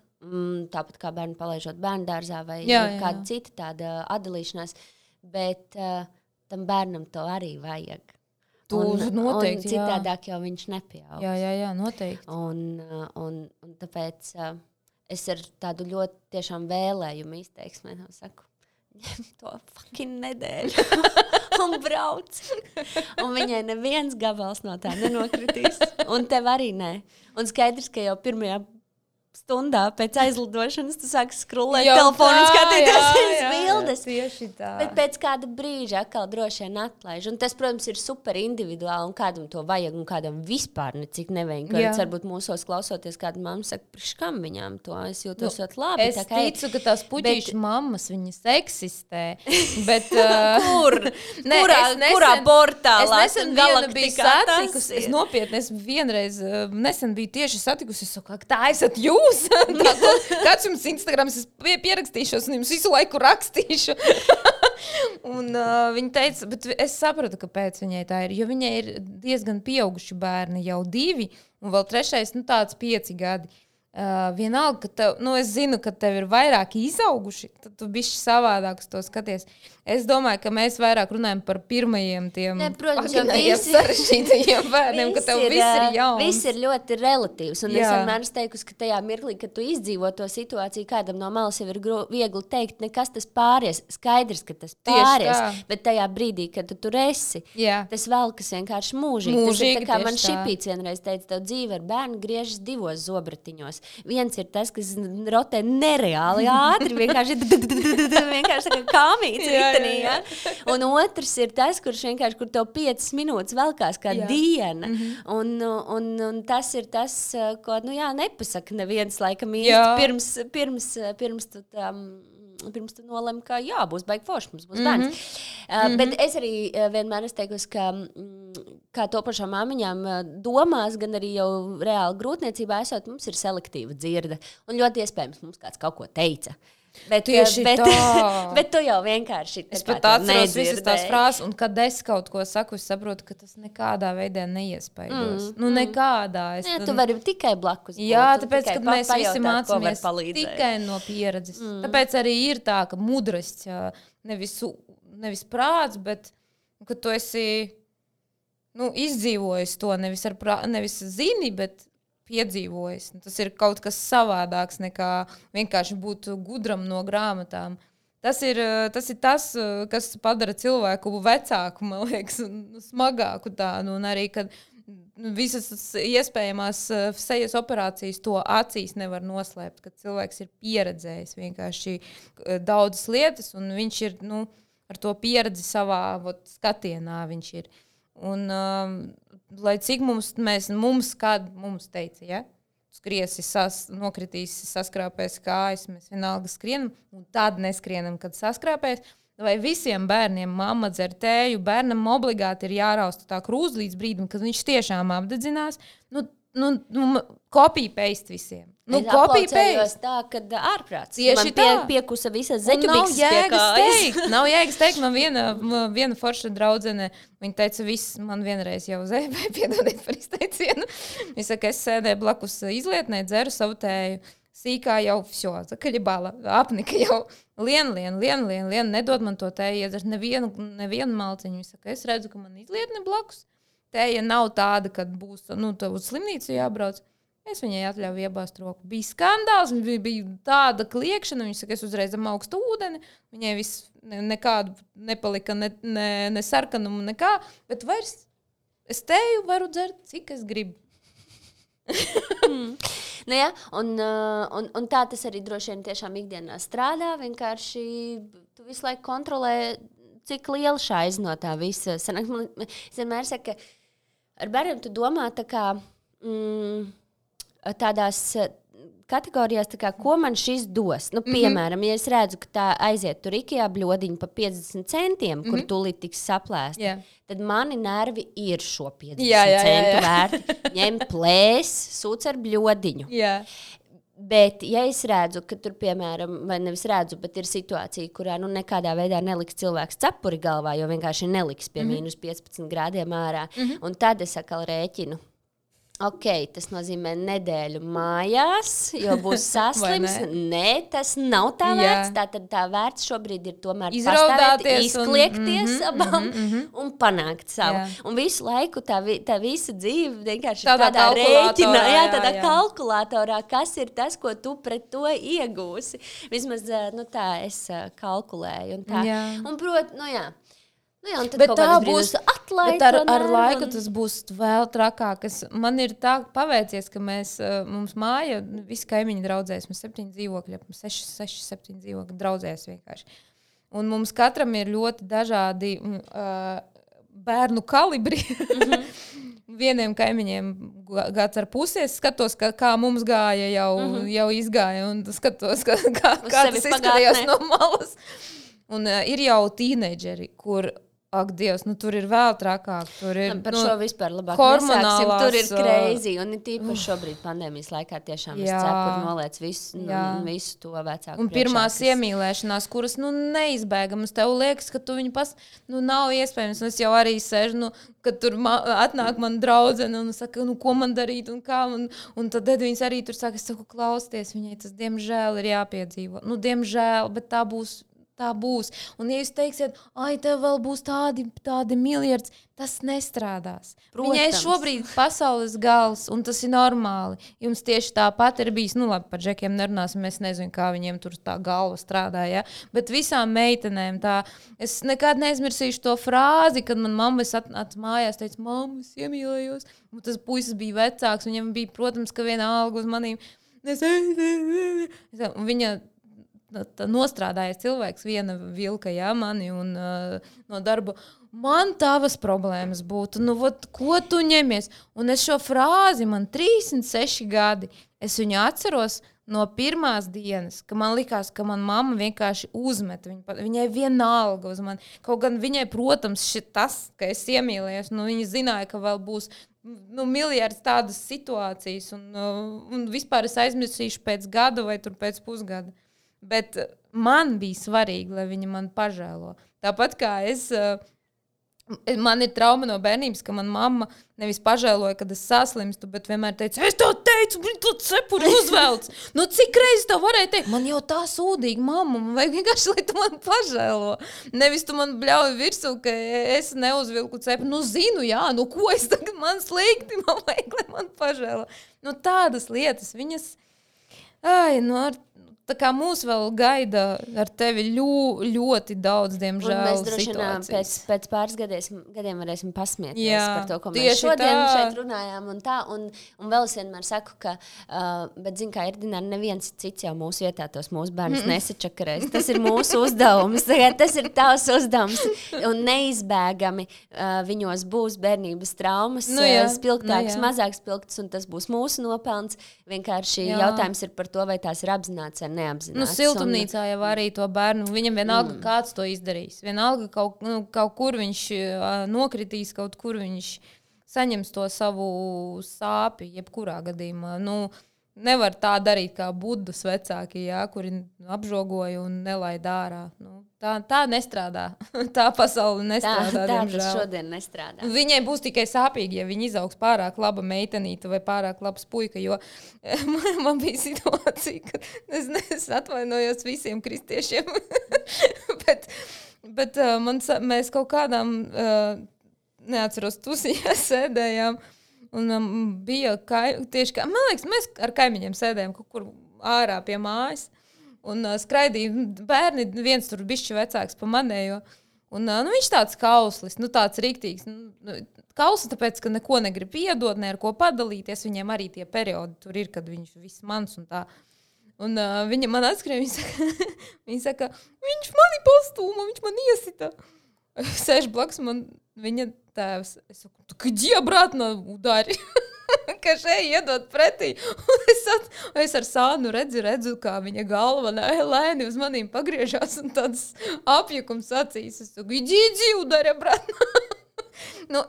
Tāpat kā bērnu palaižot bērndārzā vai kāda cita tāda atdalīšanās, bet tam bērnam to arī vajag. Noteikti, un citādāk jau viņš nepieaug. Jā, noteikti. Un tāpēc es ar tādu ļoti tiešām vēlējumu izteiksmē saku, ņem to fucking nedēļu un brauc. Un viņai neviens gabals no tā nenokritīs. Un tev arī nē. Un skaidrs, ka jau pirmajā stundā pēc aizlidošanas tu sāksi skrulēt telefonu un skatīties uz bildes. Tieši tā. Bet pēc kāda brīža atkal droši vien atlaiž. Un tas, protams, ir super individuāli un kādam to vajag un kādam vispār necik nevajag. Kāds varbūt mūsos klausoties, kāda mamma saka, priekškam viņām to, es jūtos ļoti labi. Es ticu, ka tās puķīšu mammas, viņas eksistē. Bet, kurā portālā? Es nesen vienu biju satikusi. Es nopietni, vienreiz nesen biju tieši satikusi. Es saku, tā esat jūs? Kāds jums Instagrams, es pierakstīšos un jums visu laiku rakstīšu. Un viņa teica, bet es sapratu, kāpēc viņai tā ir, jo viņai ir diezgan pieauguši bērni, jau 2, un vēl 3, tāds 5 gadi. vienalga, ka tev, es zinu, ka tev ir vairāki izauguši, tad tu bišķi savādāk uz to skaties. Es domāju, ka mēs vairāk runājam par pirmajiem tiem sarežģītajiem bērniem, ka tev viss ir jauns. Viss ir ļoti relatīvs, un es vienmēr teikusi, ka tajā mirklī, kad tu izdzīvo to situāciju, kādam no malas jau ir viegli teikt, nekas tas pāries, skaidrs, ka tas pāries, bet tajā brīdī, kad tu tur esi, tas velkas vienkārši mūžīgi. Tas ir tā kā man Šipīts vienreiz teica, tev dzīve ar bērnu griežas divos zobratiņos. Viens ir tas, kas rotē nereāli ātri, vienkārši tā kā kāmīts ritenī, ja? Un otrs ir tas, kur tev 5 minūtes velkās kā diena. Un tas ir tas, ko, nepasaka neviens laikam īsti pirms tu nolem, ka būs baigi forši, mums būs bērns. Bet es arī vienmēr teikusi, ka kā topošām māmiņām domās, gan arī jau reāli grūtniecībā esot, mums ir selektīva dzirde. Un ļoti iespējams mums kāds kaut ko teica. Bet tu jau vienkārši es pat atceros visas tās frāzes, un kad es kaut ko saku, es saprotu, ka tas nekādā veidā neiespaidos. Nekādā. Tu vari tikai blakus būt. Jā, tāpēc, kad mēs visi mācāmies tikai no pieredzes. Tāpēc arī ir tā, ka mudrasts, nevis prāts, bet ka tu esi izdzīvojis to, nevis zini, bet piedzīvojis. Tas ir kaut kas savādāks nekā vienkārši būt gudram no grāmatām. Tas ir tas, kas padara cilvēku vecāku, man liekas, smagāku tādu. Un arī, kad visas iespējamās sejas operācijas to acīs nevar noslēpt, kad cilvēks ir pieredzējis vienkārši daudzas lietas, un viņš ir ar to pieredzi savā skatienā viņš ir. Un lai cik mums teica, ja? Skriesi, nokritīsi, saskrāpēs kājas, mēs vienalga skrienam, un tad neskrienam, kad saskrāpēs. Vai visiem bērniem mamma dzer tēju, bērnam obligāti ir jārausta tā krūze līdz brīdim, kad viņš tiešām apdedzinās. Copy-paste visiem. Es aplaucējos tā, kad ārprāts. Tieši man piekusa visas zeķubikses pie kājas. Nav jēgas teikt, man viena forša draudzene, viņa teica, man vienreiz jau zēbē, piedodiet par izteicienu. Viņa saka, es sēdēju blakus izlietnē, dzeru savu tēju. Sīkā jau kaļibāla, apnika jau lien, nedod man to tēju, iedzert nevienu malciņu. Viņa saka, es redzu, ka man izlietne blakus. Tēja nav tāda, kad būs, tev uz slimnīcu jābrauc. Es viņai atļauju iebāzt roku. Bija skandāls, bija tāda kliekšana, viņa saka, es uzreiz augstu ūdeni, viņai viss nekādu nepalika, ne sarkanumu, nekā, bet vairs es tēju varu dzert, cik es gribu. Un tā tas arī droši vien tiešām ikdienā strādā, vienkārši tu visu laiku kontrolē, cik liela šaiz no tā visa. Es vienmēr saku, ka ar bērniem tu domā tā kā tādās kategorijās, tā kā, ko man šis dos. Piemēram, ja es redzu, ka tā aiziet tur IKEA bļodiņu pa 50 centiem, kur tūlīt tiks saplēst, tad mani nervi ir šo 50 centu vērti. Ņem plēs, sūc ar bļodiņu. Bet, ja es redzu, ka tur, piemēram, vai nevis redzu, bet ir situācija, kurā nekādā veidā neliks cilvēks cepuri galvā, jo vienkārši neliks pie mīnus 15 grādiem ārā, un tad es atkal rēķinu. Ok, tas nozīmē nedēļu mājās, jo būs saslims. Nē, tas nav tā vērts. Tātad tā vērts šobrīd ir tomēr pastāvēt, izkliekties abām un panākt savu. Un visu laiku tā visa dzīve vienkārši tādā rēķinā, tādā kalkulatorā, kas ir tas, ko tu pret to iegūsi. Vismaz tā es kalkulēju. Un bet tā būs atlaid. Bet ar laiku tas būs vēl trakāk. Man ir tā paveicies, ka mums māja, visi kaimiņi draudzēs, mēs 7 dzīvokļi, 6-7 dzīvokļi draudzēs vienkārši. Un mums katram ir ļoti dažādi bērnu kalibri. Vieniem kaimiņiem gads ar pusies, skatos, kā mums gāja, jau izgāja, un skatos, kā tas izskatījās no malas. Un ir jau tīneģeri, kur Ak, Dievs, tur ir vēl trakāk. Tur ir par šo vispār labāk nesāksim. Tur ir crazy. Un tīpaši šobrīd pandēmijas laikā tiešām es cepuru noliec visu to vecāku. Un pirmās iemīlēšanās, kuras neizbēgamas, tev liekas, ka tu viņu nav iespējams. Un es jau arī sēžu, kad tur atnāk man draudzene un saka, ko man darīt un kā. Un tad Edvīns arī tur saka, es saku, klausties, viņai tas diemžēl ir jāpiedzīvo. Diemžēl, bet tā būs. Un ja jūs teiksiet, tev vēl būs tādi miljardi, tas nestrādās. Protams. Viņai šobrīd pasaules gals, un tas ir normāli. Jums tieši tāpat ir bijis, labi, par džekiem nerunāsim, es nezinu, kā viņiem tur tā galva strādāja, bet visām meitenēm tā, es nekad neizmirsīšu to frāzi, kad man mamma atnāca mājās, teica, mamma, es iemīlējos, un tas puisis bija vecāks, viņam bija, protams, ka viena alga uz manīm, un viņa nostrādājies cilvēks, viena vilka, mani un no darba. Man tavas problēmas būtu, ko tu ņemies? Un es šo frāzi, man 36 gadi, es viņu atceros no pirmās dienas, ka man likās, ka man mamma vienkārši uzmet, viņai vienalga uz mani. Kaut gan viņai, protams, tas, ka es iemīlējos, viņa zināja, ka vēl būs miljards tādas situācijas, un vispār es aizmirsīšu pēc gada vai tur pēc pusgada. Bet man bija svarīgi, lai viņa man pažēlo. Tāpat kā man ir trauma no bērnības, ka man mamma nevis pažēloja, kad es saslimstu, bet vienmēr teica, es to teicu, viņa to cepuri uzvelc. Cik reizes tā varēja teikt? Man jau tā sūdīga mamma, man vajag vienkārši, lai tu man pažēlo. Nevis tu man bļauj virsū, ka es neuzvilku cepuri. Zinu, ko es tagad man slikti, man vajag, lai man pažēlo. Tādas lietas, viņas, tā kā mūs vēl gaida ar tevi ļoti daudz, diemžēl, situācijas. Pēc pāris gadiem varēsim pasmieties par to, ko mēs šodien šeit runājām. Un vēl es vienmēr saku, ka, bet zin kā, Erdināri, neviens cits jau mūsu vietā tos mūsu bērnus nesačakarēs. Tas ir mūsu uzdevums. Tas ir tavs uzdevums. Un neizbēgami viņos būs bērnības traumas, spilgtākas, mazāk spilgtas, un tas būs mūsu nopelns. Vienkārši jautājums ir par to, vai tās ir apzināts vai neapzināts. Siltumnīcā jau arī to bērnu, viņam vienalga kāds to izdarīs. Vienalga kaut kur viņš nokritīs, kaut kur viņš saņems to savu sāpi, jebkurā gadījumā. Nevar tā darīt kā Budas vecāki, kuri apžogoja un nelaid ārā. Tā nestrādā. Tā pasaule nestrādā, diemžēl. Tā šodien nestrādā. Viņai būs tikai sāpīgi, ja viņa izaugs pārāk laba meitenīte vai pārāk labs puika, jo man bija situācija, ka es atvainojos visiem kristiešiem, bet mēs kaut kādām, neatceros, tusiņā sēdējām, un bija tieši kā, man liekas, mēs ar kaimiņiem sēdējām kaut kur ārā pie mājas, un skraidīja bērni, viens tur bišķi vecāks pa manējo, un viņš tāds kauslis, tāds riktīgs, kauslis, tāpēc, ka neko negrib iedot, ne ar ko padalīties, viņiem arī tie periodi tur ir, kad viņš viss mans un tā. Un viņa man atskrēja, viņa saka, viņš mani pastūma, viņš man iesita. Sēž blakus man viņa tēvs. Es saku, где обратно ударь? Ka šeit iedot pretī. Es ar sānu redzu, kā viņa galva lēni uz manīm pagriežās un tāds apjukums acīs. Es saku, иди, ударь обратно.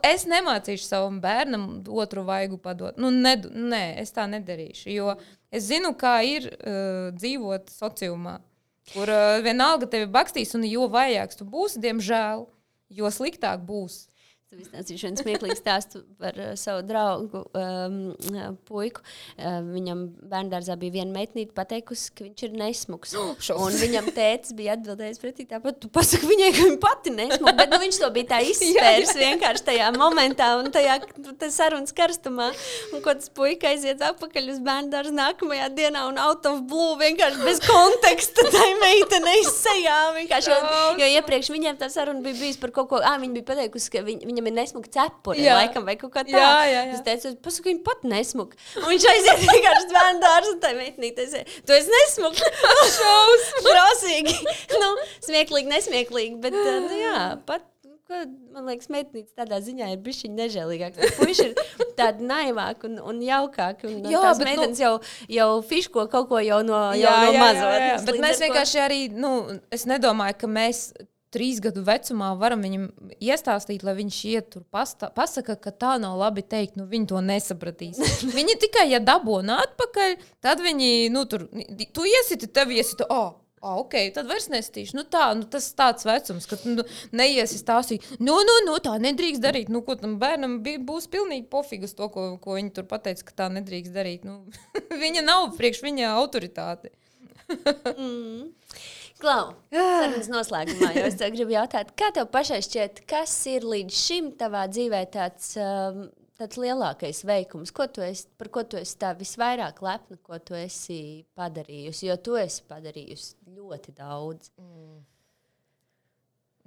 Es nemācīšu savam bērnam otru vaigu padot. Nē, es tā nedarīšu, jo es zinu, kā ir dzīvot sociumā, kur vienalga tevi bakstīs, un jo vajāks tu būsi, diemžēl, jo sliktāk būs. Es izstāstīšu vienu smieklīgu stāstu par savu draugu puiku. Viņam bērndārzā bija viena meitnīte pateikusi, ka viņš ir nesmuks. Un viņam tētis bija atbildējis pretī tāpat, tu pasaki viņai, ka viņa pati nesmuka, bet viņš to bija tā izspērs vienkārši tajā momentā un tajā sarunas karstumā. Un ko tas puika aiziet atpakaļ uz bērndārzu nākamajā dienā un out of blue vienkārši bez konteksta tai meitenei sejā. Jo iepriekš viņiem tā saruna bija bijis par kaut ko, viņa bija pateikusi, ka viņam ir nesmuka cepure, laikam, vai kaut kā tā. Jā. Es teicu, pasaka, viņa pat nesmuka. Un viņš aiziet vienkārši bērndārzu un tai meitnīte aiziet, tu esi nesmuka. Šausmīgi. Smieklīgi, nesmieklīgi, bet, pat, man liekas, meitnītes tādā ziņā ir bišķiņ nežēlīgāk. Puiši ir tādi naivāk un jaukāk. Un tās meitenes jau fiško kaut ko jau no mazo. Bet mēs vienkārši arī, es nedomāju, ka mēs 3 gadu vecumā varam viņam iestāstīt, lai viņš iet tur pasaka, ka tā nav labi teikt, viņi to nesapratīs. Viņi tikai, ja dabūna atpakaļ, tad viņi, tu iesiti, tevi iesita, ok, tad vairs nestīšu. Tas tāds vecums, ka neiesi stāstīt, tā nedrīkst darīt. Ko tam bērnam būs pilnīgi pofigas to, ko viņi tur pateica, ka tā nedrīkst darīt. Viņa nav priekš viņa autoritāte. Klau, sarunas noslēgumā, jo es tev gribu jautāt, kā tev pašai šķiet, kas ir līdz šim tavā dzīvē tāds lielākais veikums? Par ko tu esi tā visvairāk lepna, ko tu esi padarījusi? Jo tu esi padarījusi ļoti daudz.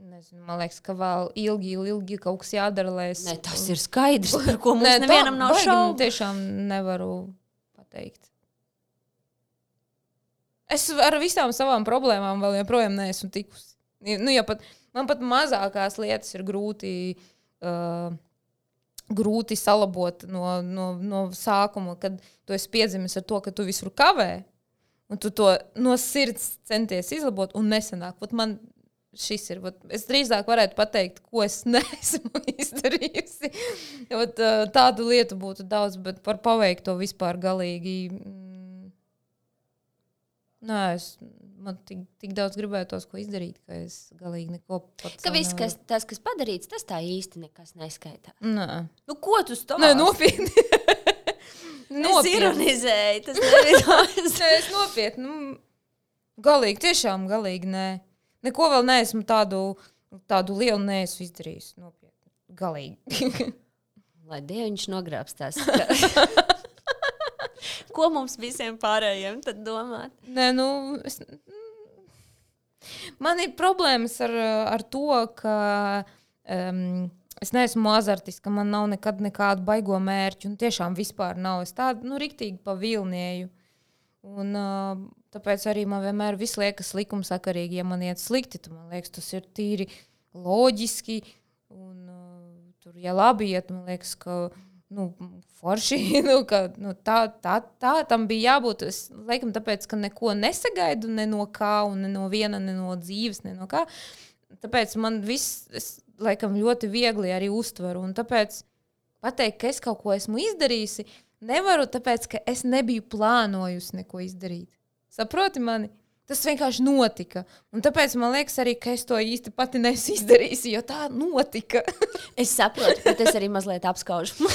Nezinu, man liekas, ka vēl ilgi kaut kas jādara, lai es... Nē, tas ir skaidrs, par ko mums nevienam nav šaubu. Tiešām nevaru pateikt. Es ar visām savām problēmām vēl joprojām neesmu tikusi. Man pat mazākās lietas ir grūti salabot no sākuma, kad tu esi piedzimis ar to, ka tu visur kavē, un tu to no sirds centies izlabot, un nesanāk. Man šis ir. Es drīzāk varētu pateikt, ko es neesmu izdarījusi. Tādu lietu būtu daudz, bet par paveikto vispār galīgi... Man tik daudz gribētos, ko izdarīt, ka es galīgi neko pats... Ka viss, kas padarīts, tas tā īsti nekas neskaitās. Nē. Ko tu stāsti? Nē, nopietni. Es ironizēju, tas nevidās. Nē, es nopietni. Galīgi, tiešām galīgi, nē. Neko vēl neesmu tādu lielu neesmu izdarījis. Nopietni. Galīgi. Lai Dieviņš nogrābstās. Ko mums visiem pārējiem tad domāt? Nē, man ir problēmas ar to, ka es neesmu azartiska, man nav nekad nekādu baigo mērķu, un tiešām vispār nav. Es tādu, riktīgi pavilnieju. Un tāpēc arī man vienmēr viss liekas likumsakarīgi, ja man iet slikti, tad man liekas, tas ir tīri loģiski, un tur, ja labi iet, man liekas, ka forši, tā tam bija jābūt. Es laikam tāpēc, ka neko nesagaidu ne no kā, un ne no viena, ne no dzīves, ne no kā. Tāpēc man viss, es laikam ļoti viegli arī uztveru, un tāpēc pateikt, ka es kaut ko esmu izdarījusi, nevaru, tāpēc, ka es nebiju plānojusi neko izdarīt. Saproti mani? Tas vienkārši notika. Un tāpēc man liekas arī, ka es to īsti pati nesu izdarījusi, jo tā notika. Es saprotu, bet es arī mazliet apskaužu.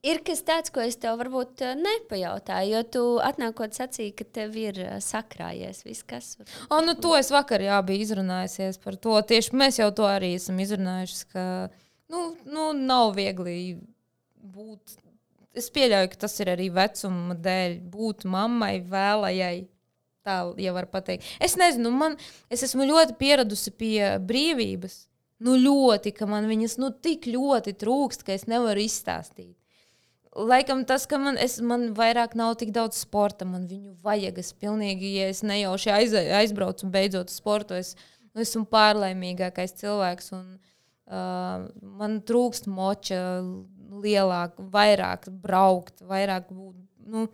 Ir kas tāds, ko es tev varbūt nepajautāju, jo tu atnākot sacīji, ka tev ir sakrājies viss, kas... To es vakar biju izrunājusies par to. Tieši mēs jau to arī esam izrunājuši, ka nav viegli būt... Es pieļauju, ka tas ir arī vecuma dēļ būt mammai, vēlajai, tā jau var pateikt. Es nezinu, es esmu ļoti pieradusi pie brīvības. Ļoti, ka man viņas tik ļoti trūkst, ka es nevaru izstāstīt. Laikam tas, ka man vairāk nav tik daudz sporta, man viņu vajag. Es pilnīgi, ja es nejauši aizbraucu un beidzot sportu, es esmu pārlaimīgākais cilvēks un man trūkst moča lielāk, vairāk braukt, vairāk būt,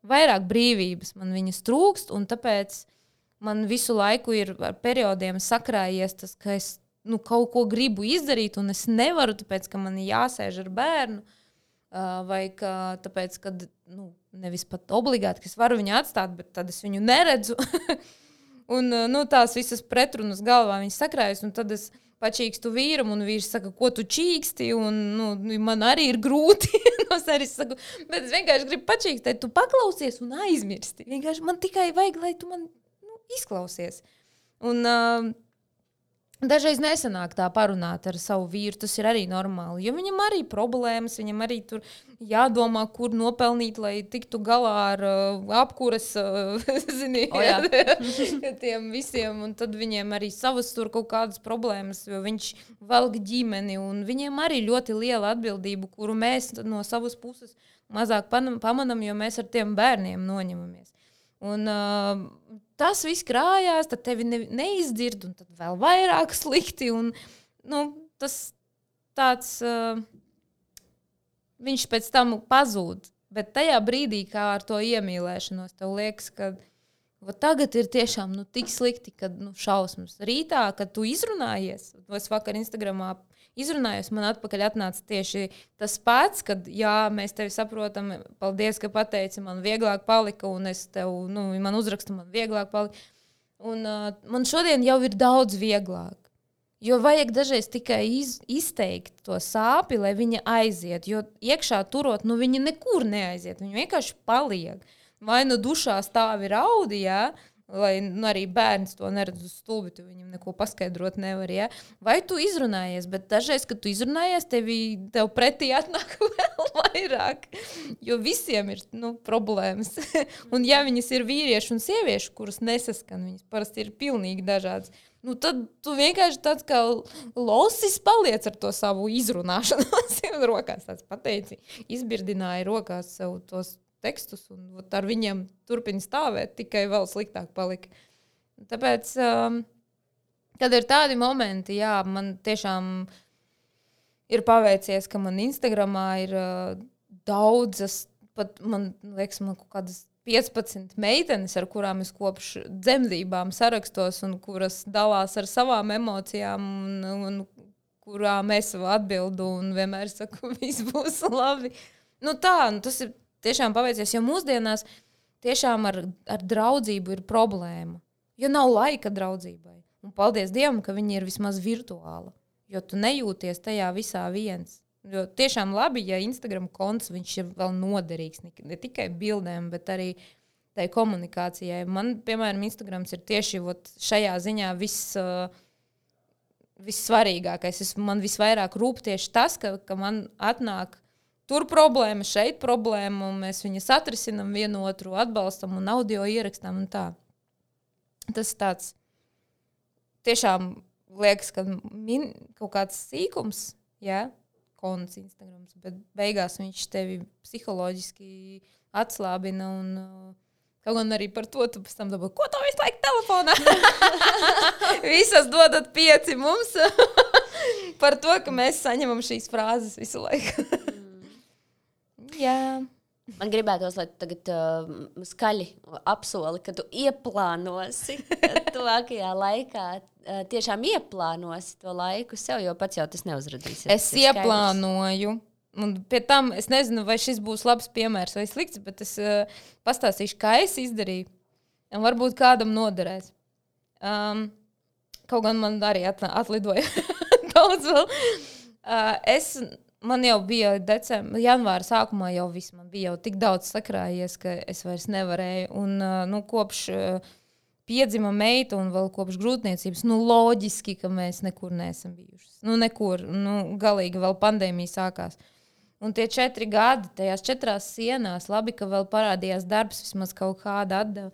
vairāk brīvības man viņas trūkst, un tāpēc man visu laiku ir ar periodiem sakrājies tas, ka es kaut ko gribu izdarīt, un es nevaru, tāpēc, ka man ir jāsēž ar bērnu, vai ka tāpēc, ka nevis pat obligāti, ka es varu viņu atstāt, bet tad es viņu neredzu. Un tās visas pretrunas galvā viņas sakrājas, un tad es pačīkstu vīram, un vīrs saka, ko tu čīksti, un man arī ir grūti. Es arī saku, bet es vienkārši gribu pačīkstēt, tu paklausies un aizmirsti. Vienkārši man tikai vajag, lai tu man izklausies. Un dažreiz nesanāk tā parunāt ar savu vīru, tas ir arī normāli, jo viņam arī problēmas, viņam arī tur jādomā, kur nopelnīt, lai tiktu galā ar apkuras, tiem visiem, un tad viņiem arī savas tur kaut kādas problēmas, jo viņš velk ģimeni, un viņiem arī ļoti liela atbildība, kuru mēs no savas puses mazāk pamanam, jo mēs ar tiem bērniem noņemamies. Un tas viss krājās, tad tevi neizdzird, un tad vēl vairāk slikti, un tas tāds, viņš pēc tam pazūd. Bet tajā brīdī, kā ar to iemīlēšanos, tev liekas, ka Tagad ir tiešām tik slikti, kad šausmas. Rītā, kad tu izrunājies, es vakar Instagramā izrunājos, man atpakaļ atnāca tieši tas pats, kad mēs tevi saprotam, paldies, ka pateici, man vieglāk palika, un es tev, man uzrakstu, man vieglāk palika. Un man šodien jau ir daudz vieglāk. Jo vajag dažreiz tikai izteikt to sāpi, lai viņa aiziet. Jo iekšā turot, viņa nekur neaiziet. Viņa vienkārši paliek. Vai dušā stāvi raudi, lai arī bērns to neredz uz stulbi, tu viņam neko paskaidrot nevar. Vai tu izrunājies, bet dažreiz, kad tu izrunājies, tev pretī atnāk vēl vairāk. Jo visiem ir problēmas. Un ja viņas ir vīrieši un sievieši, kuras nesaskan, viņas parasti ir pilnīgi dažādas. Tad tu vienkārši tāds kā losis paliec ar to savu izrunāšanu. Rokās tāds pateici, izbirdināja rokās sev tos tekstus un ar viņiem turpina stāvēt, tikai vēl sliktāk palika. Tāpēc, kad ir tādi momenti, man tiešām ir paveicies, ka man Instagramā ir daudzas, pat man liekas, man kaut kādas 15 meitenes, ar kurām es kopš dzemdībām sarakstos un kuras dalās ar savām emocijām un kurām es atbildu un vienmēr saku, viss būs labi. Tas ir tiešām paveicies, jo mūsdienās tiešām ar draudzību ir problēma. Jo nav laika draudzībai. Un paldies Dievam, ka viņi ir vismaz virtuāla. Jo tu nejūties tajā visā viens. Jo tiešām labi, ja Instagram konts, viņš ir vēl noderīgs. Ne tikai bildēm, bet arī tai komunikācijai. Man, piemēram, Instagrams ir tieši šajā ziņā vissvarīgākais. Man visvairāk rūp tieši tas, ka man atnāk tur problēma, šeit problēma, un mēs viņus atrisinam vienu otru, atbalstam un audio ierakstām un tā. Tas tāds tiešām liekas, ka kaut kāds sīkums, konts Instagrams, bet beigās viņš tevi psiholoģiski atslābina un kaut gan arī par to tu pēc tam dabūji, ko tā visu laiku telefonā? Visas dodat 5 mums par to, ka mēs saņemam šīs frāzes visu laiku. Jā. Man gribētos, lai tu tagad skaļi apsoli, ka tu ieplānosi tuvākajā laikā. Tiešām ieplānosi to laiku sev, jo pats jau tas neuzradīsies. Es ieplānoju. Un pie tam es nezinu, vai šis būs labs piemērs vai slikts, bet es pastāstīšu, kā es izdarīju. Un varbūt kādam noderēs. Kaut gan man arī atlidoja daudz vēl. Man jau bija janvāra sākumā jau viss. Man bija jau tik daudz sakrājies, ka es vairs nevarēju. Un kopš piedzima meita un vēl kopš grūtniecības, loģiski, ka mēs nekur neesam bijušas. Nekur. Galīgi vēl pandēmija sākās. Un tie 4 gadi, tajās 4 sienās, labi, ka vēl parādījās darbs, vismaz kaut kāda atdeva.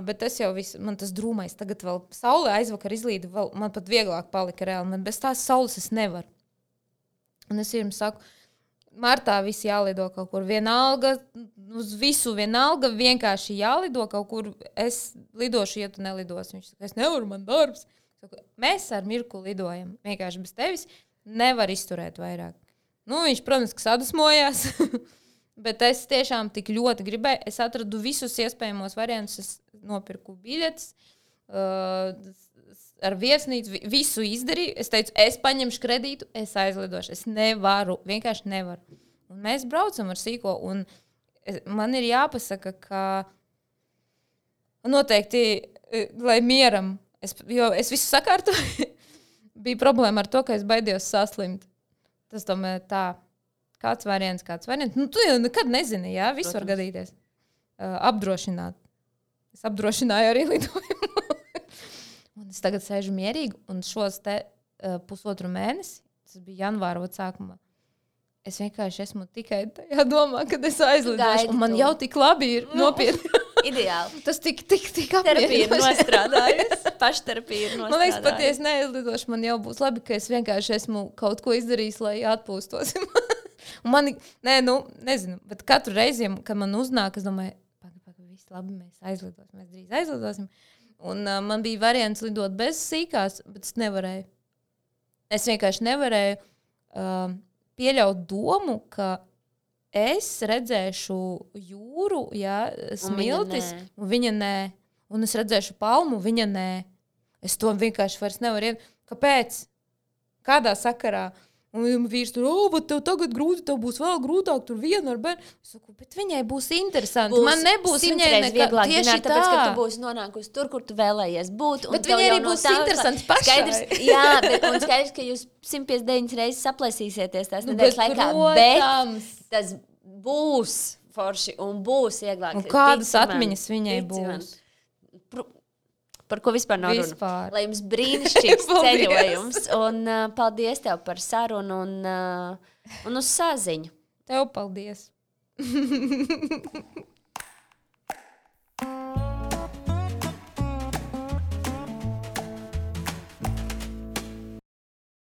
Bet tas jau viss, man tas drūmais, tagad vēl saule aizvakar izlīda, man pat vieglāk palika reāli. Man bez tās saules es nevaru. Un es jums saku, martā visi jālido kaut kur vienalga, uz visu vienalga, vienkārši jālido kaut kur. Es lidošu, ja tu nelidosi. Viņš saka, es nevaru, man darbs. Saku, mēs ar Mirku lidojam, vienkārši bez tevis nevar izturēt vairāk. Viņš, protams, ka sadusmojās, bet es tiešām tik ļoti gribēju. Es atradu visus iespējamos variantus, es nopirku biļetes, ar viesnīcu, visu izdarīju. Es teicu, es paņemšu kredītu, es aizlidošu. Es nevaru, vienkārši nevaru. Un mēs braucam ar sīko, un man ir jāpasaka, ka noteikti, lai mieram, jo es visu sakārtoju, bija problēma ar to, ka es baidījos saslimt. Tas tomēr tā, kāds variants. Tu jau nekad nezini, viss var gadīties. Apdrošināt. Es apdrošināju arī lidojumu. Un es tagad sēžu mierīgi, un šos pusotru mēnesi, tas bija janvāra sākumā, es vienkārši esmu tikai tajā domā, kad es aizlidošu, un man jau tik labi ir nopietni. Ideāli. Tas tik apmierinoši. Terapija ir nostrādājusi. Pašterapija ir nostrādājusi. Man liekas, pat ja es neaizlidošu, man jau būs labi, ka es vienkārši esmu kaut ko izdarījis, lai atpūstos. Un man, nezinu, bet katru reizi, kad man uznāk, es domāju, viss labi, mēs drīz aizlidosim. Un man bija variants lidot bez sīkās, bet es nevarēju. Es vienkārši nevarēju pieļaut domu, ka es redzēšu jūru, ja smiltis, un viņa nē. Un es redzēšu palmu, viņa nē. Es to vienkārši vairs nevaru Kāpēc? Kādā sakarā? Un vīrs tur, bet tev tagad grūti, tev būs vēl grūtāk, tur viena ar bērnu. Es saku, bet viņai būs interesanti. Man nebūs viņai vieglāk tieši tāpēc, ka tu būsi nonākusi tur, kur tu vēlējies būt. Bet viņai arī būs interesants pašai. Jā, un skaidrs, ka jūs 159 reizes saplēsīsieties tās nedēļas laikā, bet tas būs forši un būs vieglāk. Un kādas atmiņas viņai būs? Par ko vispār nav runa. Lai jums brīnišķīgs ceļojums. Un paldies tev par sarunu un uz saziņu. Tev paldies.